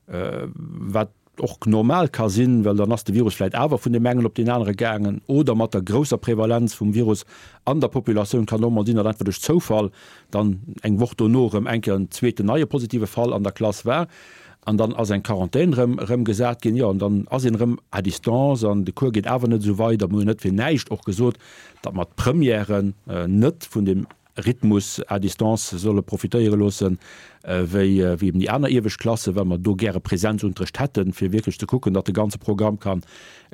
wat och normal ka sinn, well dann ass de Virus vläit awer vun deem engen op deen anere gaangen, oder mat der grousser Prevalenz vum Virus an der Populatioun kann och mol sinn, datt einfach duerch Zoufall dann eng Woch dono erëm eng Kéier en zweeten neie positive Fall an der Klass war an dann ass eng Quarantän erëm erëm gesat ginn. Jo, an dann ass een erëm à distance an de Cours geet awer net esou weider. Mir hunn net fir näischt och gesot, datt mer d'Premièren net vun deem Rhythmus à distance solle profitéiere loossen, wéi eben déi aner iewescht Klassen, well mer do gäre Präsenzunterrecht hätten, fir wierklech ze kucken, datt de ganze Programm ka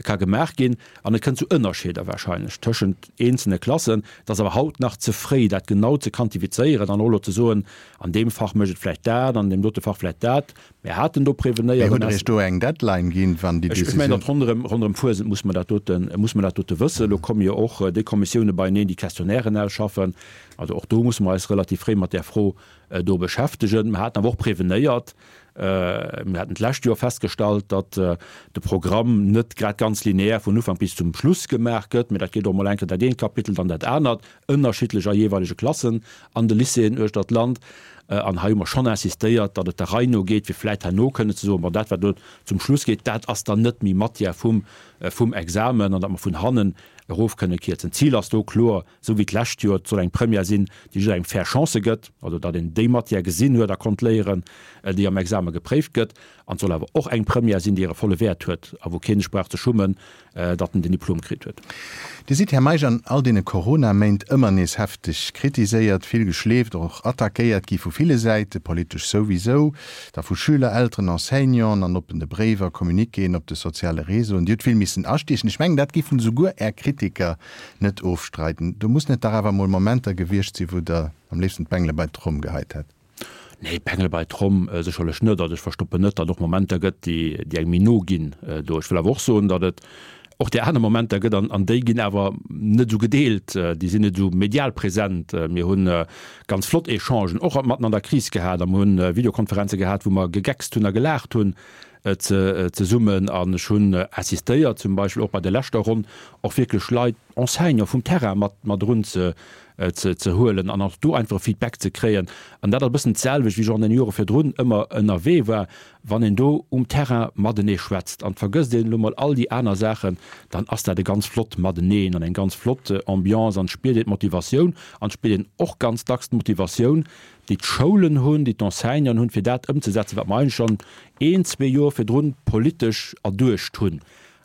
ka gemaach ginn. An et kënnt zu Ënnerscheeder wahrscheinlech tëschent eenzelne Klassen. Et ass awer haut nach ze fréi, dat genau ze quantifizéieren an och elo ze soen, an deem Fach mécht et vläicht dat, an deem dote Fach vläicht dat. Mir haten do prevenéiert. Mee hutt Der Iech do eng Deadline ginn, wann déi Decisioun. Ech mengen, datt ronderëm, ronderëm Fuesent muss mer dat doten, muss mer dat dote wëssen. Elo komme jo och déi Kommissioune beieneen, déi Questionnairen ausschaffen. Also och do musse mer eis relativ fréi mat där Fro do beschäftegen. Mer haten awer och prevenéiert, mir haten d'lescht Joer festgestallt, datt de Programm net grad ganz lineär vun Ufank bis zum Schluss gemaach gëtt, mee dat geet och mol eng Kéier dat eent Kapitel, dann dat anert. ënnerschiddlech a jeeweilege Klassen an de Lycéeën uechter d'Land. An hei hu mer schonn insistéiert, datt et der Rei no geet, fir vläit herno kënnen ze soen, bon, dat wat elo zum Schluss geet, dat ass dann net méi Matière vum, vum Examen an datt mer vun hannen erof kënne kierzen. D'Zil ass do kloer, esou wéi d'lescht Joer, et soll eng Première sinn, déi jidderengem fair Chancë gëtt, also datt een déi Matière gesinn huet a konnt léieren, déi am Exame gepréift gëtt. An et soll awer och eng Première sinn, déi hire volle Wäert huet a wou kee sech brauch ze schummen, datt en den Diplom kritt huet. Dir sidd, Här Meisch, an all deene Corona-Méint ëmmer nees hefteg kritiséiert, vill geschleeft, och attackéiert gi vu ville Säite, politesch souwisou, da vu Schüler, Elteren, Enseignanten an oppene Bréiwer, Communiquéen op de soziale Réseauen. Dir hutt vill missen astiechen. Ech mengen, dat géifen esouguer Är Kritiker net ofstreiden. Do mussen et dach awer emol Momenter gewiescht sinn, wou Der am léifsten d'Bengele bei d'Tromm geheit hätt. Nee, Pengel bei Tromm sécherlech net. Also ech verstoppen net, datt et och Momenter gëtt, déi déi engem méi no ginn do. Ech wëll awer och soen, datt et och déi aner Momenter gëtt an an déi ginn awer net esou gedeelt, déi sinn net esou medial present. Mir hu ganz flott Echangen och matten an der Kris gehat a mir hunn Videokonferenze gehat, wou mer gegeckst hunn a gelaacht hunn. zesummen. An ech hunn assistéiert, zum Beispill och bei der leschter Ronn, och wierklech Leit, Enseignant vum Terrain mat mat erun ze ze huelen an och do einfach e Feedback ze kréien. An dat ass e bëssen d'selwecht, wéi ech och an den Jore virdrun ëmmer ënnerwee war, Wann een do um Terrain matenee schwätzt an et vergësst een elo mol all déi aner Saachen, dann ass dat e ganz flott Mateneen an eng ganz flott Ambiance an et spiert een d'Motivatioun an et spiert een och ganz dacks d'Motivatioun, déi d'Schoulen hunn, déi d'Enseignanten hunn, fir dat ëmzesetzen, wat mer eigentlech schonn een, zwee Joer virdrun politesch erduecht hunn.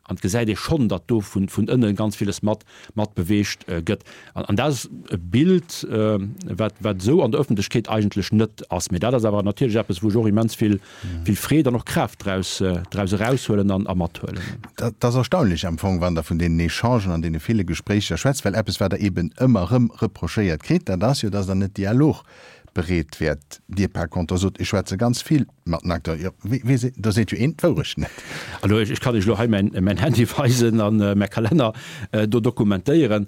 An et gesäit ee schonn, datt do vun ënne ganz villes mat mat beweegt gëtt. An dat ass e Bild, wat wat esou an der Ëffentlechkeet eigentlech net ass. Mee dat ass awer natierlech eppes, wou ech och immens vill vill Freed an och Kraaft draus draus eraushuelen an a mathuelen. Dat ass erstaunlech am Fong, wann Der vun deenen Echangen an deene ville Gespréicher schwätzt, well eppes, wat Der eeben ëmmer erëm reprochéiert kritt, dat ass jo, datt Der net dialogbereet wäert. Dir par contre sot, ech schwätze ganz vill mat den Acteuren. Jo, wee, wee seet, do seet jo een d'Wourecht net. Also ech kann Iech elo hei mäin, mäin Handy weisen an mäi Kalenner do dokumentéieren.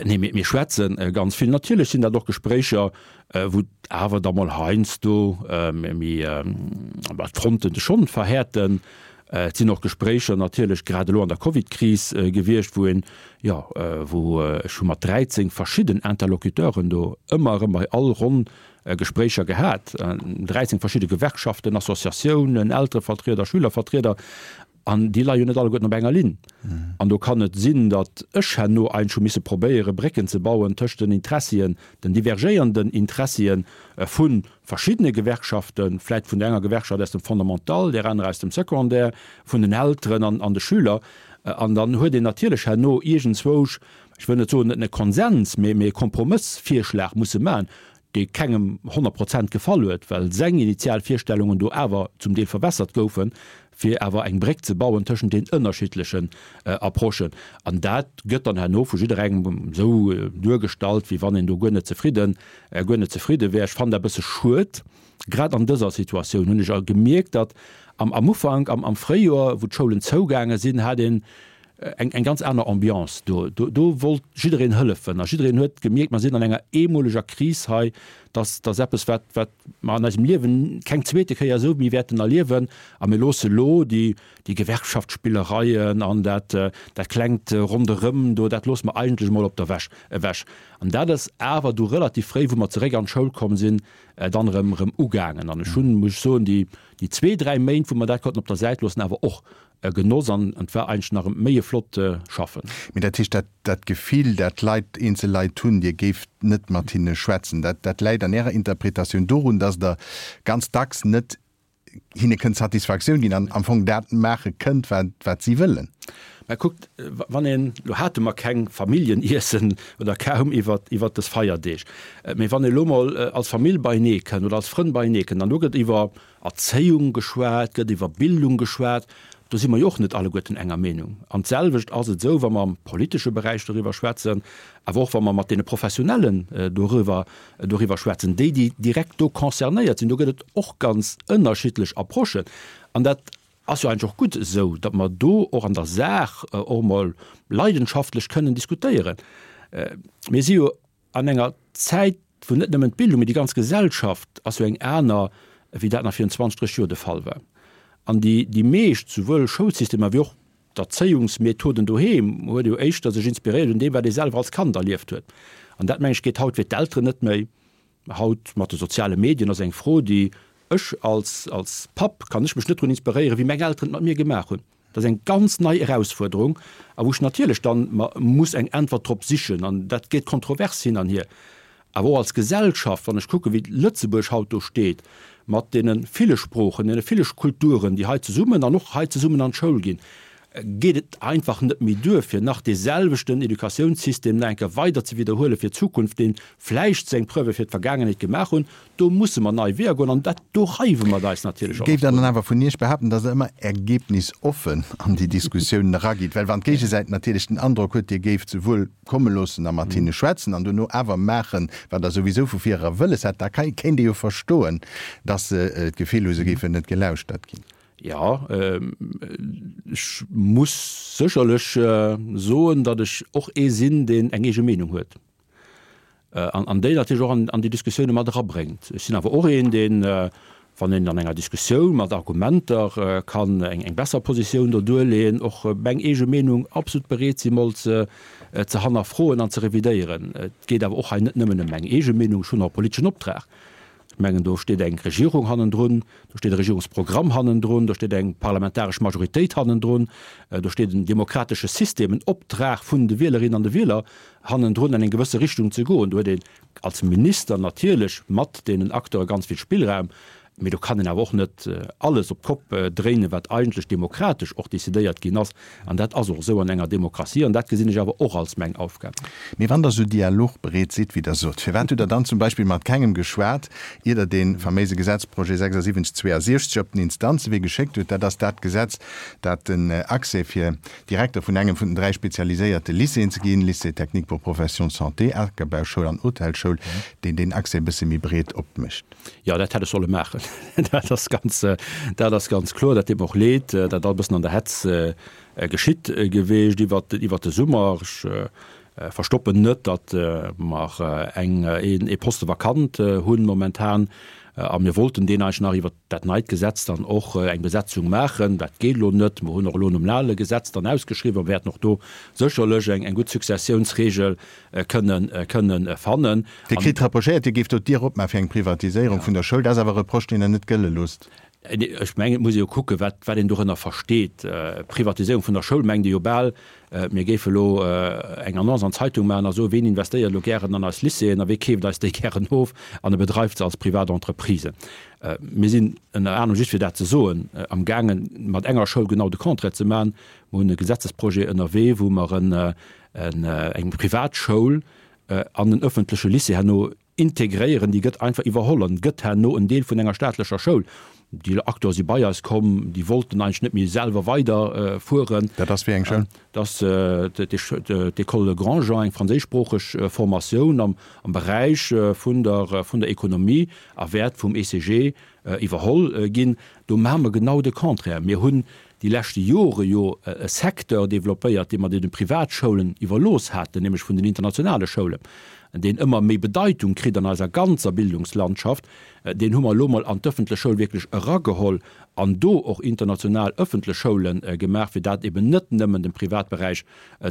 Nee, mir, mir schwätze ganz vill. Natierlech sinn dat och Gespréicher, wou awer da mol heiansdo méi d'Fronten sech schonn verhäerten. Et sinn och Gespréicher natierlech grad elo an der Covidkris gewiescht, wou een, jo, wou ech hu mat 13 verschidden Interlocuteuren do ëmmer erëm bei all Ronn Gespréicher gehat, 13 verschidde Gewerkschaften, Associatiounen, Elterevertrieder, Schülervertrieder. An déi leie jo net alleguerten op enger Linn. An do kann et sinn, datt ech herno eigentlech hu misse probéieren, Brécken ze bauen tëscht den Interessien, den divergéiernden Interessien vu verschiddene Gewerkschaften, vläit vun der enger Gewerkschaft aus dem Fondamental, där anerer aus dem Secondaire, vun den Elteren an de Schüler. An dann huet een natierlech herno iergendzwousch, ech wëll net soen e Konsens, mee e Kompromëssvirschlag musse maachen, dee kengem 100 Prozent gefall huet, well seng initial Virstellungen do awer zum Deel verwässert goufen, fir awer eng Bréck ze bauen tëschent den ënnerschiddlechen Approchen. An dat gëtt dann herno vu jidderengem esou duergestallt, wéi wann een do guer net zefridden, guer net zefridde wär. Ech fannen dat e bësse schued. Grad an dëser Situatioun hunn ech gemierkt, datt am am Ufank, am am Fréijoer, wou d'Schoulen zougaange sinn, hat een eng eng ganz aner Ambiance do. Do do wollt jiddereen hëllefen a jiddereen huet gemierkt, mer sinn an enger eemoleger Kris hei, dass dass eppes wat wat mer an eisem Liewen keng zweete Kéier esou méi wäerten erliewen a mir loosse lo déi déi Gewerkschaftsspillereien an dat dat klengt Ronderëm do, dat loosse mer eigentlech emol op der Wäsch ewech. An dat ass awer du relativ fréi, wou mer zeréck an d'Schoul komm sinn, dann erëm erëm ugaangen. An ech hunn, muss ech soen, déi déi zwee, dräi Méint, wou mer dat konnten op der Säit loossen, awer och e Genoss an et war eigentlech nach méi e flott Schaffen. Mee dat heescht, dat dat Gefill, dat d'Leit, eenzel Leit hunn, Dir géift net mat hinne schwätzen, dat dat läit an Ärer Interpretatioun dorun, datt Der ganz dacks net hinne kënnt Satisfaktioun ginn an am Fong dat maache kënnt, wat wat si wëllen? Mä kuckt, wann een, elo hate mer keng Familljeniessen oder kaum iwwert iwwert dës Feierdeeg, mee wann ee elo mol als Famill beienee kënnt oder als Frënn beienee kënnt an do gëtt iwwer Erzéiung geschwat gëtt, iwwer Bildung geschwat, do si mer jo och net alleguerten enger Meenung. An d'selwecht ass et esou, wa mer am politesche Beräich doriwwer schwätzen, awer och wa mer mat deene Professionellen doriwwer doriwwer schwätzen, déi, déi direkt do concernéiert sinn, do gëtt et och ganz ënnerschiddlech Approchen. An dat ass jo eigentlech och gutt esou, datt mer do och an der Saach och emol leidenschaftlech kënnen diskutéieren. Mir si jo An enger Zäit, wou net nëmmen d'Bildung, mee déi ganz Gesellschaft ass jo eng aner, wéi dat nach virun 20, 30 Joer de Fall war. An déi, déi meescht, souwuel Schoulsystemer wéi och d'Erzéiungsmethoden doheem, huet jo éischter sech inspiréiert un deem, wat ee selwer als Kand erlieft huet. An dat, meng ech, geet haut fir d'Elteren net méi. Haut mat de soziale Medien ass eng Fro, déi ech als, als Papp kann ech mech net drun inspiréieren, wéi meng Elteren et mat mir gemaach hunn. Dat ass eng ganz nei Erausfuerderung a wou ech natierlech dann mer muss eng Äntwert drop sichen an dat gétt kontrovers hin an hier. Awer och als Gesellschaft, wann ech kucken, wéi Lëtzebuerg haut do steet mat deene ville Sproochen, deene ville Kulturen, déi hei zesummen an och hei zesummen an d'Schoul ginn, geet et einfach net méi duer, fir nach dee selwechten Educatiounssystem nach eng Kéier weider ze widderhuele fir d'Zukunft, dee vläicht seng Preuve fir d'Vergaangenheet gemaach hunn. Do musse mer nei Weeër goen an dat, do reiwe mer eis natierlech och. Géift Der dann awer vun Iech behaapten, datt Der ëmmer ergebnisoffen an déi Diskussiounen eragitt? Well wann d'Géigesäit natierlech den Androck huet, Dir géift se wuel komme loossen a mat hinne schwätzen an duerno awer maachen, wat Der souwisou vu vir era wëlles hat, da kéint ee jo verstoen, datt se d'Gefill hu se géifen net gelauschtert ginn. Jo, ech muss sécherlech soen, datt ech och ee sinn, deen eng eege Meenung huet. An déi natierlech och an déi Diskussioune mat erabréngt. Ech sinn awer och een, deen, Wann een an enger Diskussioun mat Argumenter kann eng besser Positioun do duerleeën, och meng eege Meenung absolut bereet si mol ze hannerfroen an ze revidéieren. Et geet awer och hei net nëmmen ëm meng eege Meenung, ech hunn och e politeschen Optrag. Ech mengen, do steet eng Regierung hannendrun, do steet e Regierungsprogramm hannendrun, do steet eng parlamentaresch Majoritéit hannendrun, do steet en demokratesche System, en Optrag vun de Wielerinnen an de Wieler hannendrun, an eng gewësse Richtung ze goen. Do huet een als Minister natierlech mat deenen Acteure ganz vill Spillraum, mee do kann een awer och net alles op d'Kopp dréinen, wat eigentlech demokratesch och decidéiert ginn ass. An dat ass och esou an enger Demokratie an dat gesinn ech awer och als meng Aufgab. Mee wann Der esou dialogbereet sidd, wéi Der sot, firwat hutt Der dann zum Beispill mat kengem geschwat, ier Der dee faméise Gesetzprojet 76 62 op den Instanzewee geschéckt hutt? Dat ass dat Gesetz, dat den Accès fir Direkter vun engem vun den 3 spezialiséierte Lycéeën ze ginn, Lycée technique pour professions de santé, Akerbauschoul an Hotelschoul, deen deen Accès e bësse méi breet opmécht. Jo, dat hätt ech solle maachen. Dat ass ganz, dat ass ganz kloer. Dat deet mer och leed, dat ass e bëssen an der Hetz geschitt geweecht iwwert, iwwert de Summer. Ech verstoppen net, datt mer eng, een, ee Poste vakant hunn momentan a mir wollten deen eigentlech nach iwwert dat neit Gesetz dann och eng Besetzung maachen. Dat geet elo net. Mer hunn och elo nom ale Gesetz dann ausgeschriwwen a wäerten och do sécherlech eng, eng gutt Successiounsregel kënnen, kënnen fannen. Dir kritt reprochéiert, Dir géift do d'Dier opmaache fir eng Privatiséierung vun der Schoul. Dat ass awer e Reproche, deen Der net gëlle loosst. Ech mengen, et muss ee jo kucken, wat, wat een dorënner versteet. Privatiséierung vun der Schoul mengt ee jo bal, mir géife elo eng Annonce an d'Zeitung maachen a soen, ween investéiert elo gären an eis Lycéeën a wee keeft eis déi gären of an e bedreift se als privat Entreprise. Mir sinn ënner anerem, just fir dat ze soen, amgaangen, mat enger Schoul genau de Contraire ze maachen. Mir hunn e Gesetzesprojet ënnerwee, wou mer en, eng Privatschoul an en ëffentleche Lycée herno integréieren, déi gëtt einfach iwwerholl an gëtt herno en Deel vun enger staatlecher Schoul. Déi Acteure si bei eis komm, déi wollten eigentlech net méi selwer weider fueren. Dat ass wéi eng Schoul? Dat ass d'École Grandjean, eng franséischsproocheg Formatioun am Beräich vun der vun der Ekonomie a wäert vum ECG iwwerholl ginn. Do maache mer genau de Contraire. Mir hunn déi leschte Jore jo e Secteur développéiert, dee mer deene Privatschoulen iwwerlooss haten, nämlech vun den internationale Schoulen, deen ëmmer méi Bedeitung kritt an eiser ganzer Bildungslandschaft, deen hu mer elo mol an d'ëffentlech Schoul wierklech erageholl an do och international ëffentlech Schoule gemaach, fir dat eben net nëmmen dem Privatberäich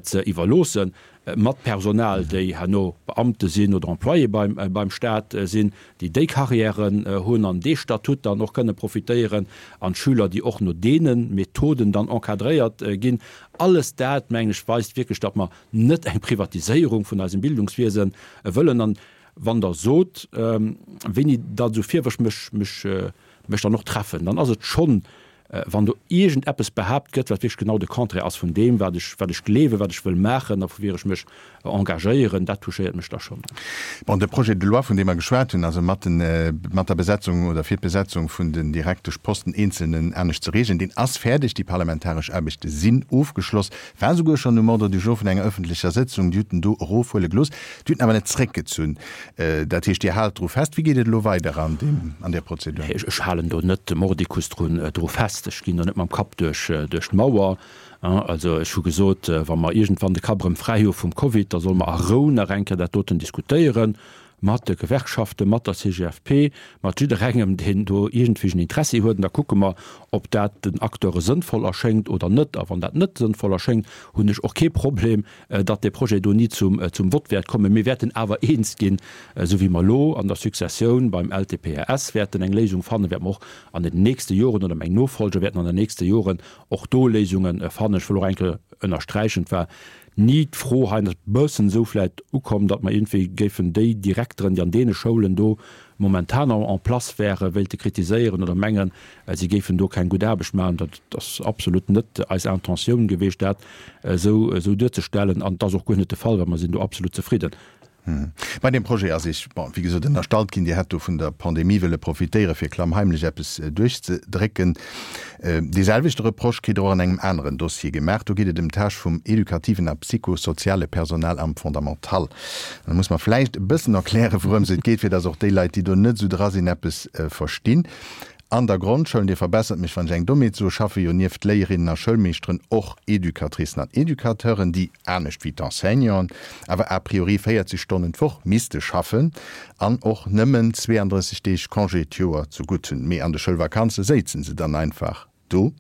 ze iwwerloossen. mat Personal, déi herno Beamte sinn oder Employé beim, beim Staat sinn, déi déi Carrièren hunn an dee Statut dann och kënne profitéieren, an d'Schüler, déi och no deene Methoden dann encadréiert ginn. Alles dat, mengen ech, weist wierklech, datt mer net eng Privatiséierung vun eisem Bildungswiese wëllen. An wann Der sot, wéini datt esou Virwërf mech, mech, mech dann och treffen, dann ass et schonn Wann do iergendeppes behaapt gëtt, wat wierklech genau de Contraire ass vun deem, wat ech, wat ech gleewen, wat ech wëll maachen a woufir ech mech engagéieren, dat touchéiert mech da schonn. Bon, de Projet de loi, vun deem mer geschwat hunn, also mat den, mat der Besetzung oder fir d'Besetzung vun den Direkteschposten eenzelnen anescht ze regeln, deen ass fäerdeg. Déi parlamentaresch Aarbechte sinn ofgeschloss, war souguer schonn um Ordre du jour vun enger öffentlecher Sëtzung. Dir hutt en do erofhuele gelooss, Dir hutt en awer net zréckgezunn. Dat heescht, Dir haalt dru fest. Wéi geet et elo weider an deem, an där Prozedur? Ech halen do net mordicus drun, dru fest. Ech ginn do net mam Kapp duerch, duerch d'Mauer. Also ech hu gesot, wa mer iergendwann de Kapp erëm fräi hu vum Covid, da solle mer a Rou nach eng Kéier dat doten diskutéieren, mat de Gewerkschaften, mat der CGFP, mat jidderengem, deen do iergendwéi en Interessi huet. An da kucke mer, ob dat den Acteure sënnvoll erschéngt oder net. A wann dat net sënnvoll erschéngt, hunn ech och kee Problem, datt dee Projet do ni zum Vott wäert kommen. Mir wäerten awer eens ginn, esou wéi mer elo an der Successioun beim LTPRS wäerten eng Léisung fannen, wäerte mer och an den nächste Joren, oder meng Nofolger wäerten an den nächste Joren och do Léisunge fannen. Ech wëll och eng Kéier ënnersträichen, et war ni d'Fro hei, an et ass e bëssen esou vläicht ukomm, datt mer iergendwéi géifen déi Direkteren, déi an deene Schoulen do momentan en place wäre, wéilte kritiséieren oder mengen, si géifen do keng gutt Aarbecht maachen. Dat ass absolut net eis Intentioun gewiescht, dat esou duerzestellen. An et ass och guer net de Fall, well mer sinn do absolut zefridden. Bei deem Projet ass Iech, bon, wéi gesot, ënnerstallt ginn, Dir hätt do vun der Pandemie wëlle profitéieren, fir klammheimlech eppes duerchzedrécken. Dee selwechte Reproche kritt Der och an engem aneren Dossier gemaach. Do geet et ëm d'Tâche vum edukativen a psychosoziale Personal am Fondamental. Da muss mer vläicht e bëssen erklären, wourëms et geet, fir dass och déi Leit, déi do net esou dra sinn, eppes verstinn. An der Grondschoul, Dir verbessert mech, wann ech eng Dommheet soen, schaffe jo nieft Léierinnen a Schoulmeeschteren och Educatricen an Educateuren, déi, anescht wéi d'Enseignanten, awer a priori 40 Stonnen d'Woch misste schaffen an och nëmmen 32 Deeg Congé d'Joer zu gutt hunn. Mee an de Schoulvakanze séizen se dann einfach do.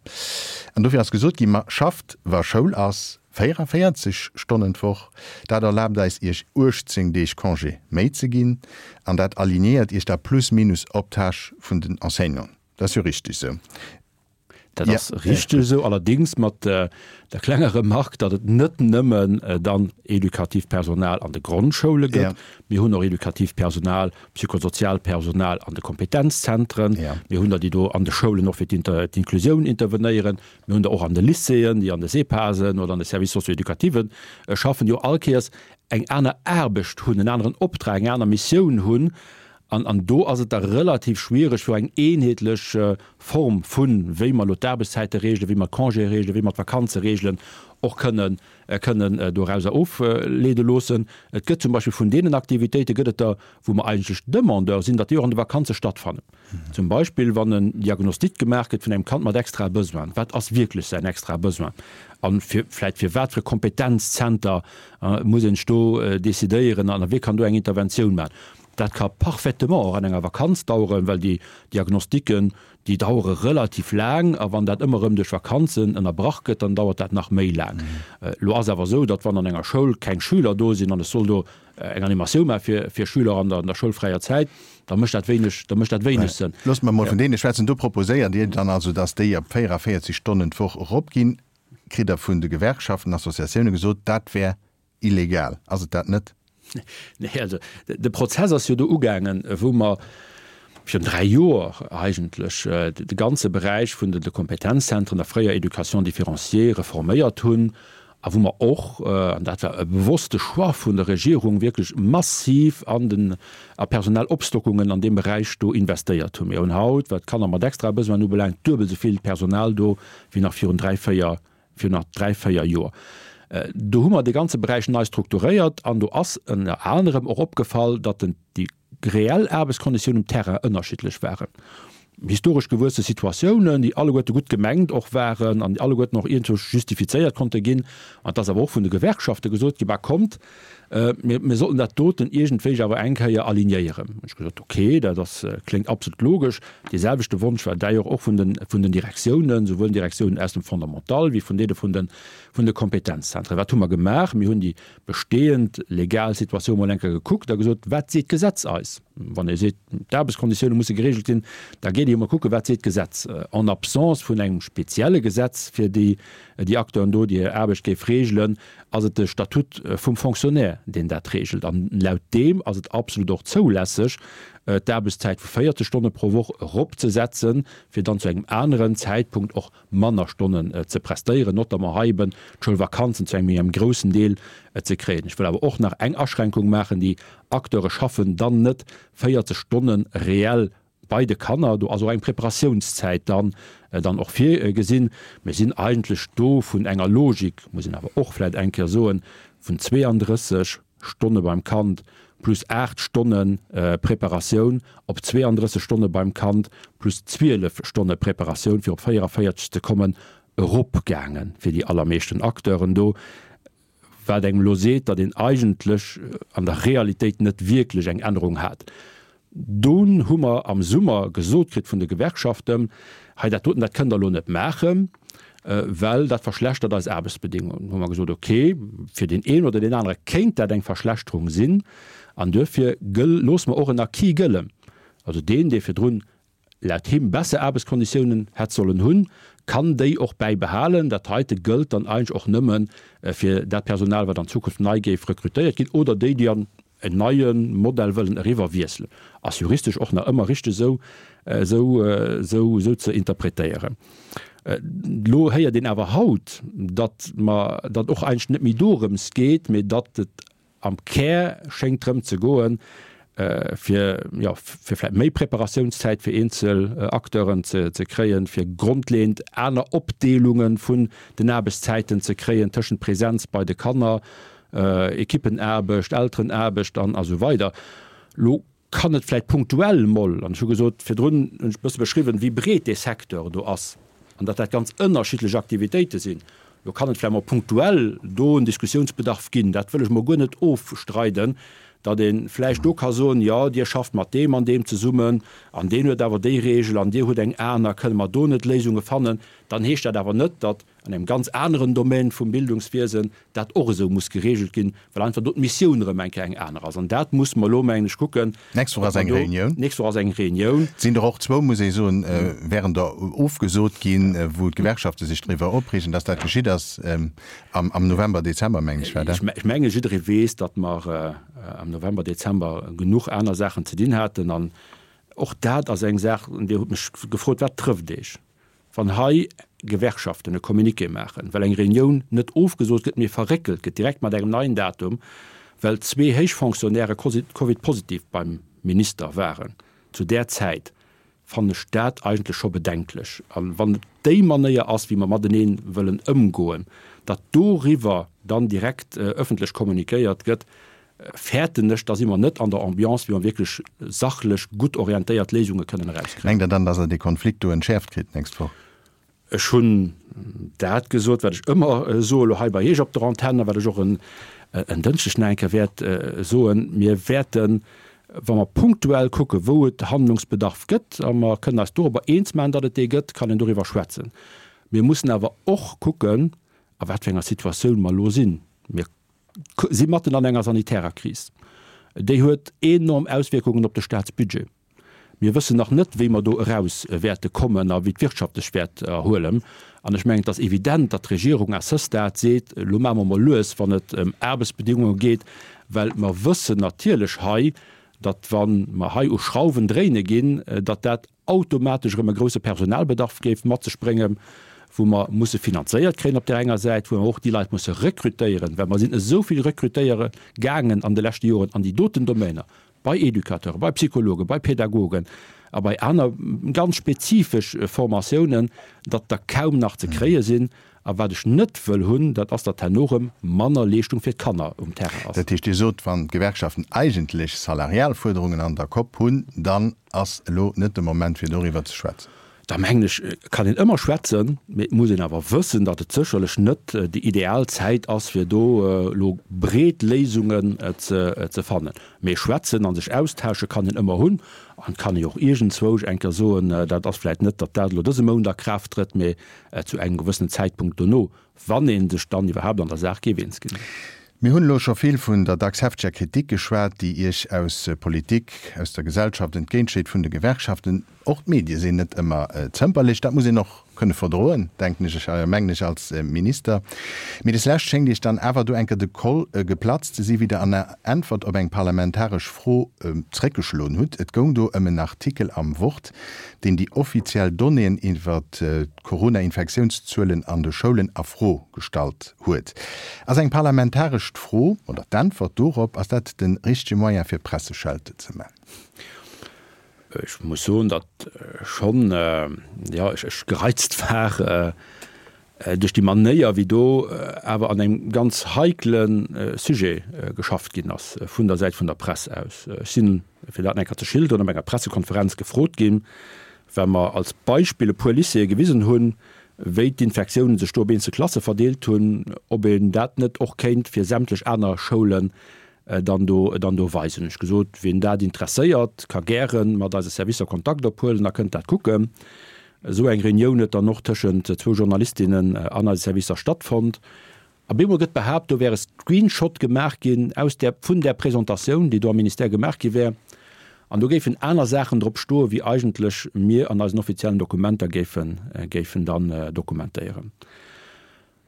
An dofir ass gesot ginn, Ma schafft, wa Schoul ass, 44 Stonnen d'Woch. Dat erlaabt eis, Iech 18 Deeg Congé méi ze ginn. An dat alignéiert Iech da plus minus op d'Tâche vun den Enseignanten. Dat ass jo richteg esou. Dat ass richteg esou, allerdéngs mat der klenger Remarque, datt et net nëmmen dann edukatiivt Personal an de Grondschoule gëtt. Mir hunn och edukatiivt Personal, psychosoziaalt Personal an de Kompetenzzentren. Mir hunn der, déi do an de Schoulen och fir d'Inklusioun intervenéieren. Mir hunn der och an de Lycéeën, déi an de SEPASen oder an de Services socio-éducativen schaffen, déi och all Kéiers eng aner Aarbecht hunn, en aneren Optrag, eng aner Missioun hunn. An, an do ass et da relativ schwierig, fir eng eenheetlech Form vun, wéi mer elo d'Aarbechtszäite regelen, wéi mer d'Congéë regelen, wéi mer d'Vakanze regelen, och kënnen, kënnen dorauser ofleede loossen. Et gëtt zum Beispill vun deenen Aktivitéite gëtt et der, wou mer eigentlech Demandeur sinn, datt déi och an de Vakanze stattfannen. Zum Beispill wann en Diagnostic gemaach gëtt vun engem Kand mat extrae Besoinen. Wat ass wierklech säin extrae Besoin? A fir vläicht fir wat fir e Kompetenzzenter muss een sech do decidéieren an wie kann do eng Interventioun maachen? Dat ka parfaitement och an enger Vakanz daueren, well déi Diagnostiquen, déi dauere relativ laang a wann dat ëmmer erëm duerch Vakanzen ënnerbrach gëtt, dann dauert dat nach méi laang. Elo ass awer esou, datt wann an enger Schoul keng Schüler do sinn an ech soll do eng Animatioun maache fir Schüler an der schoulfräier Zäit, da mécht dat wéineg, da mécht dat wéineg Sënn. Loosst mer emol vun deene schwätzen. Do proposéiert Dir dann also, datt déi op 44 Stonnen d'Woch eropginn. Kritt Der vun de Gewerkschaften, Associatioune gesot, dat wär illegal. Ass et dat net? Nee, also de Prozess ass jo do ugaangen, wou mer virun 3 Joer eigentlech de ganze Beräich vun de Kompetenzzentren, der fréier Éducation différenciée, reforméiert hunn a wou mer och, an dat war e bewosste Choix vun der Regierung, wierklech massiv an den a personell Opstockungen an deem Beräich do investéiert hunn. Mir hunn haut, wat d'Kanner mat extrae Besoinen ubelaangt, duebel esou vill Personal do wéi nach virun 3, 4 virun nach 3, 4 Joer. Do hu mer dee ganze Beräich nei strukturéiert an do ass ënner anerem och opgefall, datt den, déi reell Aarbechtskonditiounen um Terrain ënnerschiddlech waren. Historesch gewuesse Situatiounen, déi alleguerte gutt gemengt och waren an déi alleguerten och iergendwou justifizéiert konnte ginn. An et ass awer och vun de Gewerkschafte gesot ginn, Bah kommt, mir, mir sollten dat doten iergendwéi awer eng Kéier alignéieren. Hunn ech gesot, okay, dat ass, kléngt absolut logesch. Dee selwechte Wonsch war d'ailleurs och vun den, vun den Direktiounen, souwuel den Direktiounen aus dem Fondamental wéi vun deene vun den, vun de Kompetenzzentren. Wat hu mer gemaach? Mir hunn déi bestehend legal Situatioun mol eng Kéier gekuckt a gesot, Wat seet d'Gesetz eis? Wann ee seet, d'Aarbechtskonditioune musse geregelt sinn, da geet ee jo mol kucken, wat seet d'Gesetz. En absence vun engem spezielle Gesetz fir déi, déi Acteuren do, déi hir Aarbecht géif regelen, ass et de Statut vum Fonctionnaire, deen dat regelt. An laut deem ass et absolut och zoulässeg, d'Aarbechtszäit vu 40 Stonne pro Woch eropzesetzen, fir dann zu engem aneren Zäitpunkt och manner Stonnen ze prestéieren, notamment hei eben d'Schoulvakanzen zu engem méi engem groussen Deel ze kréien. Ech wëll awer och nach eng Aschränkung maachen, Déi Acteure schaffen dann net 40 Stonne reell Bei de Kanner, do ass och eng Preparatiounszäit dann dann och virgesinn. Mir sinn eigentlech do vun enger Logik, muss een awer och vläicht eng Kéier soen, vun 32 Stonne beim Kand plus 8 Stonne Preparatioun op 32 Stonne beim Kand plus 12 Stonne Preparatioun, fir op 44 ze kommen, eropgaange fir déi allermeeschten Acteuren do. Wat engem elo seet, datt een eigentlech an der Realitéit net wierklech eng Ännerung hat. Dunn hu mer am Summer gesot kritt vun de Gewerkschaften, hei dat doten, dat kënnt Der elo net maachen, well dat verschlechtert eis Aarbechtsbedingungen. Hu mer gesot, okay, fir deen een oder deen anere kéint dat eng Verschlechterung sinn an duerfir gëll, loosse mer och en Acquis gëllen. Also deen, dee virdrun laut him besser Aarbechtskonditiounen hätt sollen hunn, kann déi och bäibehalen. Dat heite gëllt dann eigentlech och nëmme fir dat Personal, wat an Zukunft nei géif rekrutéiert ginn oder déi, déi an en neie Modell wëllen eriwwer wiesselen. Ass juristesch och nach ëmmer richteg esou, esou, esou, esou ze interpretéieren. Elo héiert een awer haut, datt mer, datt och eigentlech net méi dorëms geet, mee datt et Am Kär schéngt drëm ze goen, fir, jo, fir vläicht méi Preparatiounszäit fir eenzel Acteuren ze kréien, fir grondleeënd aner Opdeelunge vun den Aarbechtszäiten ze kréien tëschent Präsenz bei de Kanner, Ekippenaarbecht, Elterenaarbecht an esou weider. Lo. kann et vläicht punktuell mol, an ech hu gesot virdrun, hunn ech e bësse beschriwwen, wéi breet dee Secteur do ass an datt dat ganz ënnerschiddlech Aktivitéite sinn, do kann et vläicht mol punktuell do en Diskussiounsbedarf ginn. Dat wëll ech mol guer net ofstreiden, datt ee vläicht do ka soen, jo, Dir schafft mat deem an deem zesummen an deen huet awer déi Regel an Dir hutt eng aner, kënne mer do net Léisunge fannen? Dann heescht dat awer net, datt an engem ganz aneren Domän vum Bildungswiesen dat och esou muss geregelt ginn, well einfach do d'Missioun erëm eng Kéier eng aner ass. An dat muss mer elo, mengen ech, kucken. D'nächst Woch ass eng Reunioun. D'nächst Woch ass eng Reunioun. Et sinn der och zwou, muss ee soen, wären der ofgesot ginn, wou d'Gewerkschafte sech driwwer opreegen, dass dat geschitt ass am November, Dezember, mengen ech war dat. Ech menge jidderee weess, datt mer am November, Dezember genuch aner Saachen ze dinn haten. An och dat ass eng Saach, Dir hutt mech gefrot, Wat trëfft Iech? Wann hei Gewerkschaften e Communiqué maachen, well eng Reunioun net ofgesot gëtt, mee verréckelt gëtt, direkt mat engem neien Datum, well zwee héich Fonctionnairë Covid-positiv beim Minister waren zu där Zäit, fannen ech dat eigentlech scho bedenklech. A wann et déi Manéier ass, wéi mer matenee wëllen ëmgoen, datt doriwwer dann direkt ëffentlech kommuniquéiert gëtt, fäerten ech, da si mer net an der Ambiance, wéi mer wierklech sachlech gutt orientéiert Léisunge kënnen erauskréien. Mengt Der dann, dass Der dee Konflikt do entschäerft kritt d'nächst Woch? Ech hunn dat gesot, wat ech ëmmer soe lo hei bei Iech op der Antenn a wat ech och en Dënschdeg nach eng Kéier wäert soen, Mir wäerten, wa mer punktuell kucken, wou et Handlungsbedarf gëtt, a mer kënnen eis dorobber eens maachen, datt et dee gëtt, kann een doriwwer schwätzen. Mir mussen awer och kucken, a wat fir enger Situatioun mer elo sinn. Mir si matten an enger sanitärer Kris. Déi huet enorm Auswierkungen op de Staatsbudget. Mir wëssen nach net, wéi mer do eraus wäerte kommen a wéi d'Wirtschaft sech wäert erhuelen. An ech mengen, et ass evident, datt d'Regierung à ce stade seet, Elo maache mer mol lues, wann et ëm Aarbechtsbedingunge geet, well mer wëssen natierlech hei, datt wa mer hei u Schrauwen dréine ginn, datt dat automatesch erëm e grouse Personalbedarf géif mat sech bréngen, wou mer musse finanzéiert kréien op där enger Säit, wou mer och déi Leit musse rekrutéieren, well mer sinn esou vill rekrutéiere gaangen an de leschte Joren an déi doten Domainer, bei Educateuren, bei Psychologen, bei Pädagogen a bei aner ganz spezifesch Formatiounen, datt der kaum nach ze kréie sinn. A wat ech net wëll hunn, dat ass, datt herno erëm manner Leeschtung fir d'Kanner um Terrain ass. Dat heescht, Dir sot, wann d'Gewerkschaften eigentlech salarial Fuerderungen an der Kopp hunn, dann ass elo net de Moment fir doriwwer ze schwätzen. Da mengen ech, kann een ëmmer schwätzen, mee et muss een awer wëssen, datt et sécherlech net déi ideal Zäit ass, fir do elo breet Léisungen ze fannen. Mee schwätzen a sech austausche kann een ëmmer hunn an et kann ee jo och iergendzwousch eng Kéier soen, dat ass vläicht net, datt dat elo dëse Mount a Kraaft trëtt, mee zu engem gewëssenen Zäitpunkt dono, wann ee sech dann iwwerhaapt an der Saach géif eens ginn. Mir hunn elo scho vill vun der dacks hefteger Kritik geschwat, déi Iech aus Politik, aus der Gesellschaft entgéintschéit, vun de Gewerkschaften. Och d'Medie sinn net ëmmer zëmperlech. Dat muss een och kënne verdroen, denken ech, mengen ech als Minister. Mee des Lescht schéngt Iech dann awer do eng Kéier de Koll geplatzt ze si wéi Der an der Äntwert op eng parlamentaresch Fro zréckgeschloen hutt. Et goung do ëm en Artikel am Wort, deen déi offiziell Donnéeën iwwer d'Corona-Infektiounszuelen an de Schoulen a Fro gestallt huet. Ass eng parlamentarescht Fro, oder d'Äntwert dorop, ass dat de richtege Moyen fir Presseschelte ze man? Ech muss soen, datt schonn, jo, ech gereizt war duerch déi Manéier, wéi do awer an engem ganz heikle Sujet geschafft ginn ass vun der Säit vun der Press aus. Ech sinn, fir dat nach eng Kéier ze schilderen, op enger Pressekonferenz gefrot ginn, well mer als Beispill e puer Lycéeë gewisen hunn, wéi d'Infektiounen sech do op eenzel Klasse verdeelt hunn, ob een dat net och kéint fir sämtlech aner Schoulen dann do dann do weisen. Hunn ech gesot, wien dat interesséiert, ka gäre mat eise Servicer Kontakt ophuelen a kënnt dat kucken. Esou eng Reunioun huet dann och tëschent zwou Journalistinnen an eise Servicer stattfonnt. A bemol gëtt behaapt, do wär e Screenshot gemaach ginn aus där, vun där Presentatioun, déi do am Ministère gemaach gi wär, an do géifen aner Saachen drop stoen, wéi eigentlech mir an eisen offiziellen Dokumenter géifen, géifen dann dokumentéieren.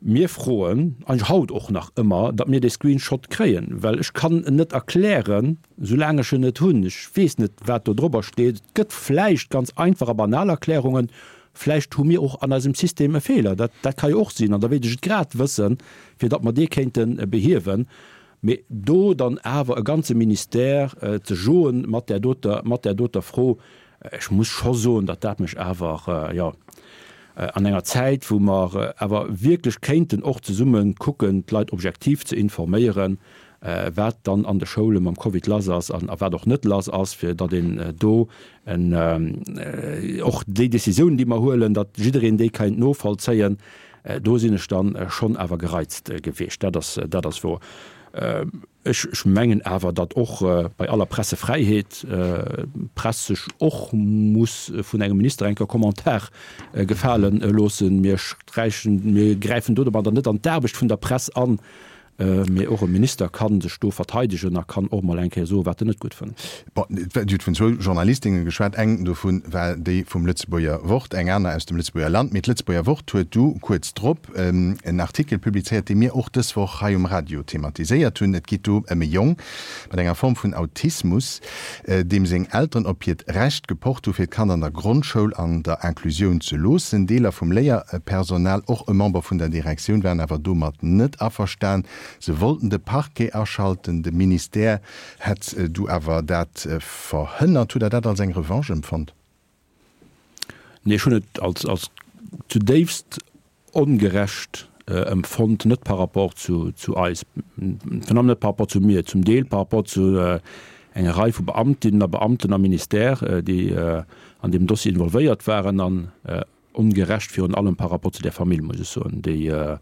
Mir froen, eigentlech haut och nach ëmmer, datt mir dee Screenshot kréien, well ech kann en net erklären, soulaang ech en net hunn. Ech weess net, wat do drobber steet. Et gëtt vläicht ganz einfach a banal Erklärungen. Vläicht hu mir och an eisem System e Feeler. Dat, dat ka jo och sinn. An da wéilt ech et grad wëssen, fir datt mer dee kéinte behiewen. Mee do dann awer e ganze Ministère ze joen mat där doter, mat där doter Fro, ech muss scho soen, datt dat mech awer, jo, an enger Zäit, wou mer awer wierklech kéinten och zesumme kucken, d'Leit objektiv ze informéieren. wat dann an de Schoule mam Covid lass ass an a wat och net lass ass, fir datt een do en och déi Décisiounen, déi mer huelen, datt jiddereen déi kéint novollzéien. Do sinn ech dann schonn awer gereizt gewiescht, dat ass, dat ass wouer. Ech mengen awer, datt och bei aller Pressefräiheet d'Press sech och muss vun engem Minister eng Kéier Commentaire gefale loossen. Mir sträichen, mir gräifen do domadder net an d'Aarbecht vun der Press an, mee och e Minister ka sech do verteidegen a kann och mol eng Kéier soen, wat en net gutt fënnt. Bon, Dir hutt vun zwou Journalistinne geschwat. Eng dovu war déi vum Lëtzebuerger Wort, eng aner aus dem Lëtzebuerger Land. Mee d'Lëtzebuerger Wort huet du kuerz drop en Artikel publizéiert, dee mir och dës Woch hei um Radio thematiséiert hunn. Et geet do ëm e Jong mat enger Form vun Autismus, deem seng Elteren op hiert Recht gepocht hu fir d'Kand an der Grondschoul an der Inclusioun ze loossen. Deeler vum Léierpersonal, och e Member vun der Direktioun, waren awer domat net averstan. Se wollten de Parquet aschalten. De Ministère hätt du awer dat verhënnert. Hutt Der dat als eng Revanche empfonnt? Nee, ech hunn et als, als zudéifst ongerecht empfonnt, net par rapport zu, zu eis, virun allem net par rapport zu mir, zum Deel par rapport zu enger Rei vu Beamtinnen a Beamten am Ministère, déi an deem Dossier involvéiert waren, an ongerecht virun allem par rapport zu där Famill, muss ech soen, déi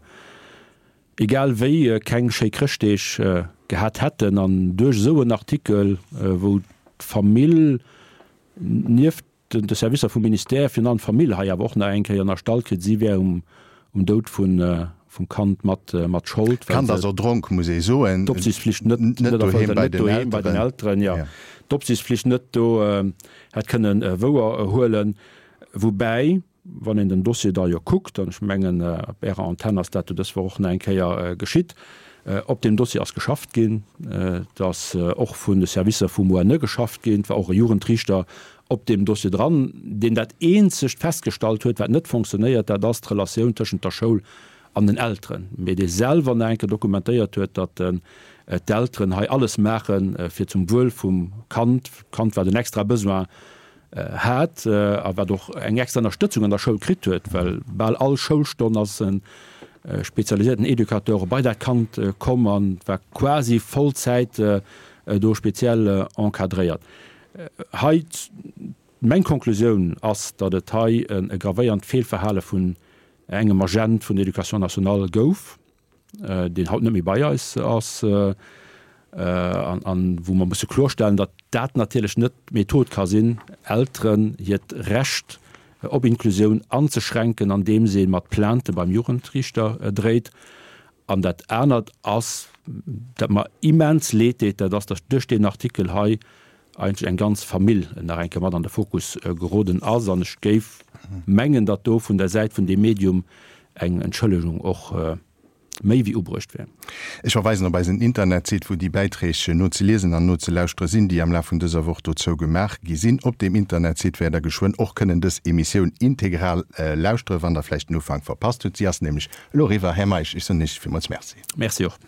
egal wéi keng schéi Chrëschtdeeg gehat hätten an duerch esou en Artikel, wou d'Famill nieft de Servicer vum Ministère, virun allem d'Famill hei awer och nach eng Kéier ënnerstallt kritt, si wär um Doud vum Kand mat Schold, well se. D'Kand ass erdronk, muss ee soen. D'Opsiichtspflicht net erfëllt huet, net doheem bei den Elteren, jo, d'Opsiichtspflicht net do hätt kënnen wouer huelen. Woubäi, Wann een den Dossier da jo kuckt, an ech mengen, op Ärer Antenn ass dat jo dës Woch och nach eng Kéier geschitt, op deem Dossier ass geschafft ginn, et ass och vun de Servicer vum ONE geschafft ginn, et war och e Jugendriichter op deem Dossier dran, deen dat eenzegt festgestallt huet, wat net fonctionnéiert, dat ass d'Relatioun tëschent der Schoul an den Elteren, mee dee selwer nach eng Kéier dokumentéiert huet, datt d'Elteren hei alles maachen, fir zum Wuel vum Kand, d'Kand wat en extra Besoin hat a wat och eng extra Ënnerstëtzung an der Schoul kritt huet, well bal all Schoulstonn ass e spezialiséierten Educateur bei dat Kand komm a war quasi Vollzäit do speziell encadréiert. Hei, meng Konklusioun ass, datt et hei e gravéiernd Feelverhale vun engem Agent vun der Éducation nationale gouf. deen haut net méi bei eis ass, an wou mer musse klorstellen, datt dat natierlech net d'Method ka sinn, Elteren hiert Recht op Inklusioun anzeschränken, andeems ee mat Plainte beim Jugendriichter dréit. An dat anert ass, dat mer immens leed deet, dat ass, datt duerch deen Artikel hei eigentlech eng ganz Famill nach eng Kéier mat an de Fokus geroden ass. An ech géif mengen, datt do vun der Säit vun deem Medium eng Entschëllegung och méi wéi ubruecht wär. Ech verweisen op eisen Internetsite, wou déi Bäiträg nozeliesen an nozelauschteren sinn, déi am Laf vun dëser Woch dozou gemaach gi sinn. Op deem Internetsite wäert Der geschwënn och kënnen dës Emissioun integral lauschteren, wann Der vläicht den Ufank verpasst hutt. Si ass nämlech elo eriwwer. Här Meisch, ech soen Iech villmools Merci. Merci och.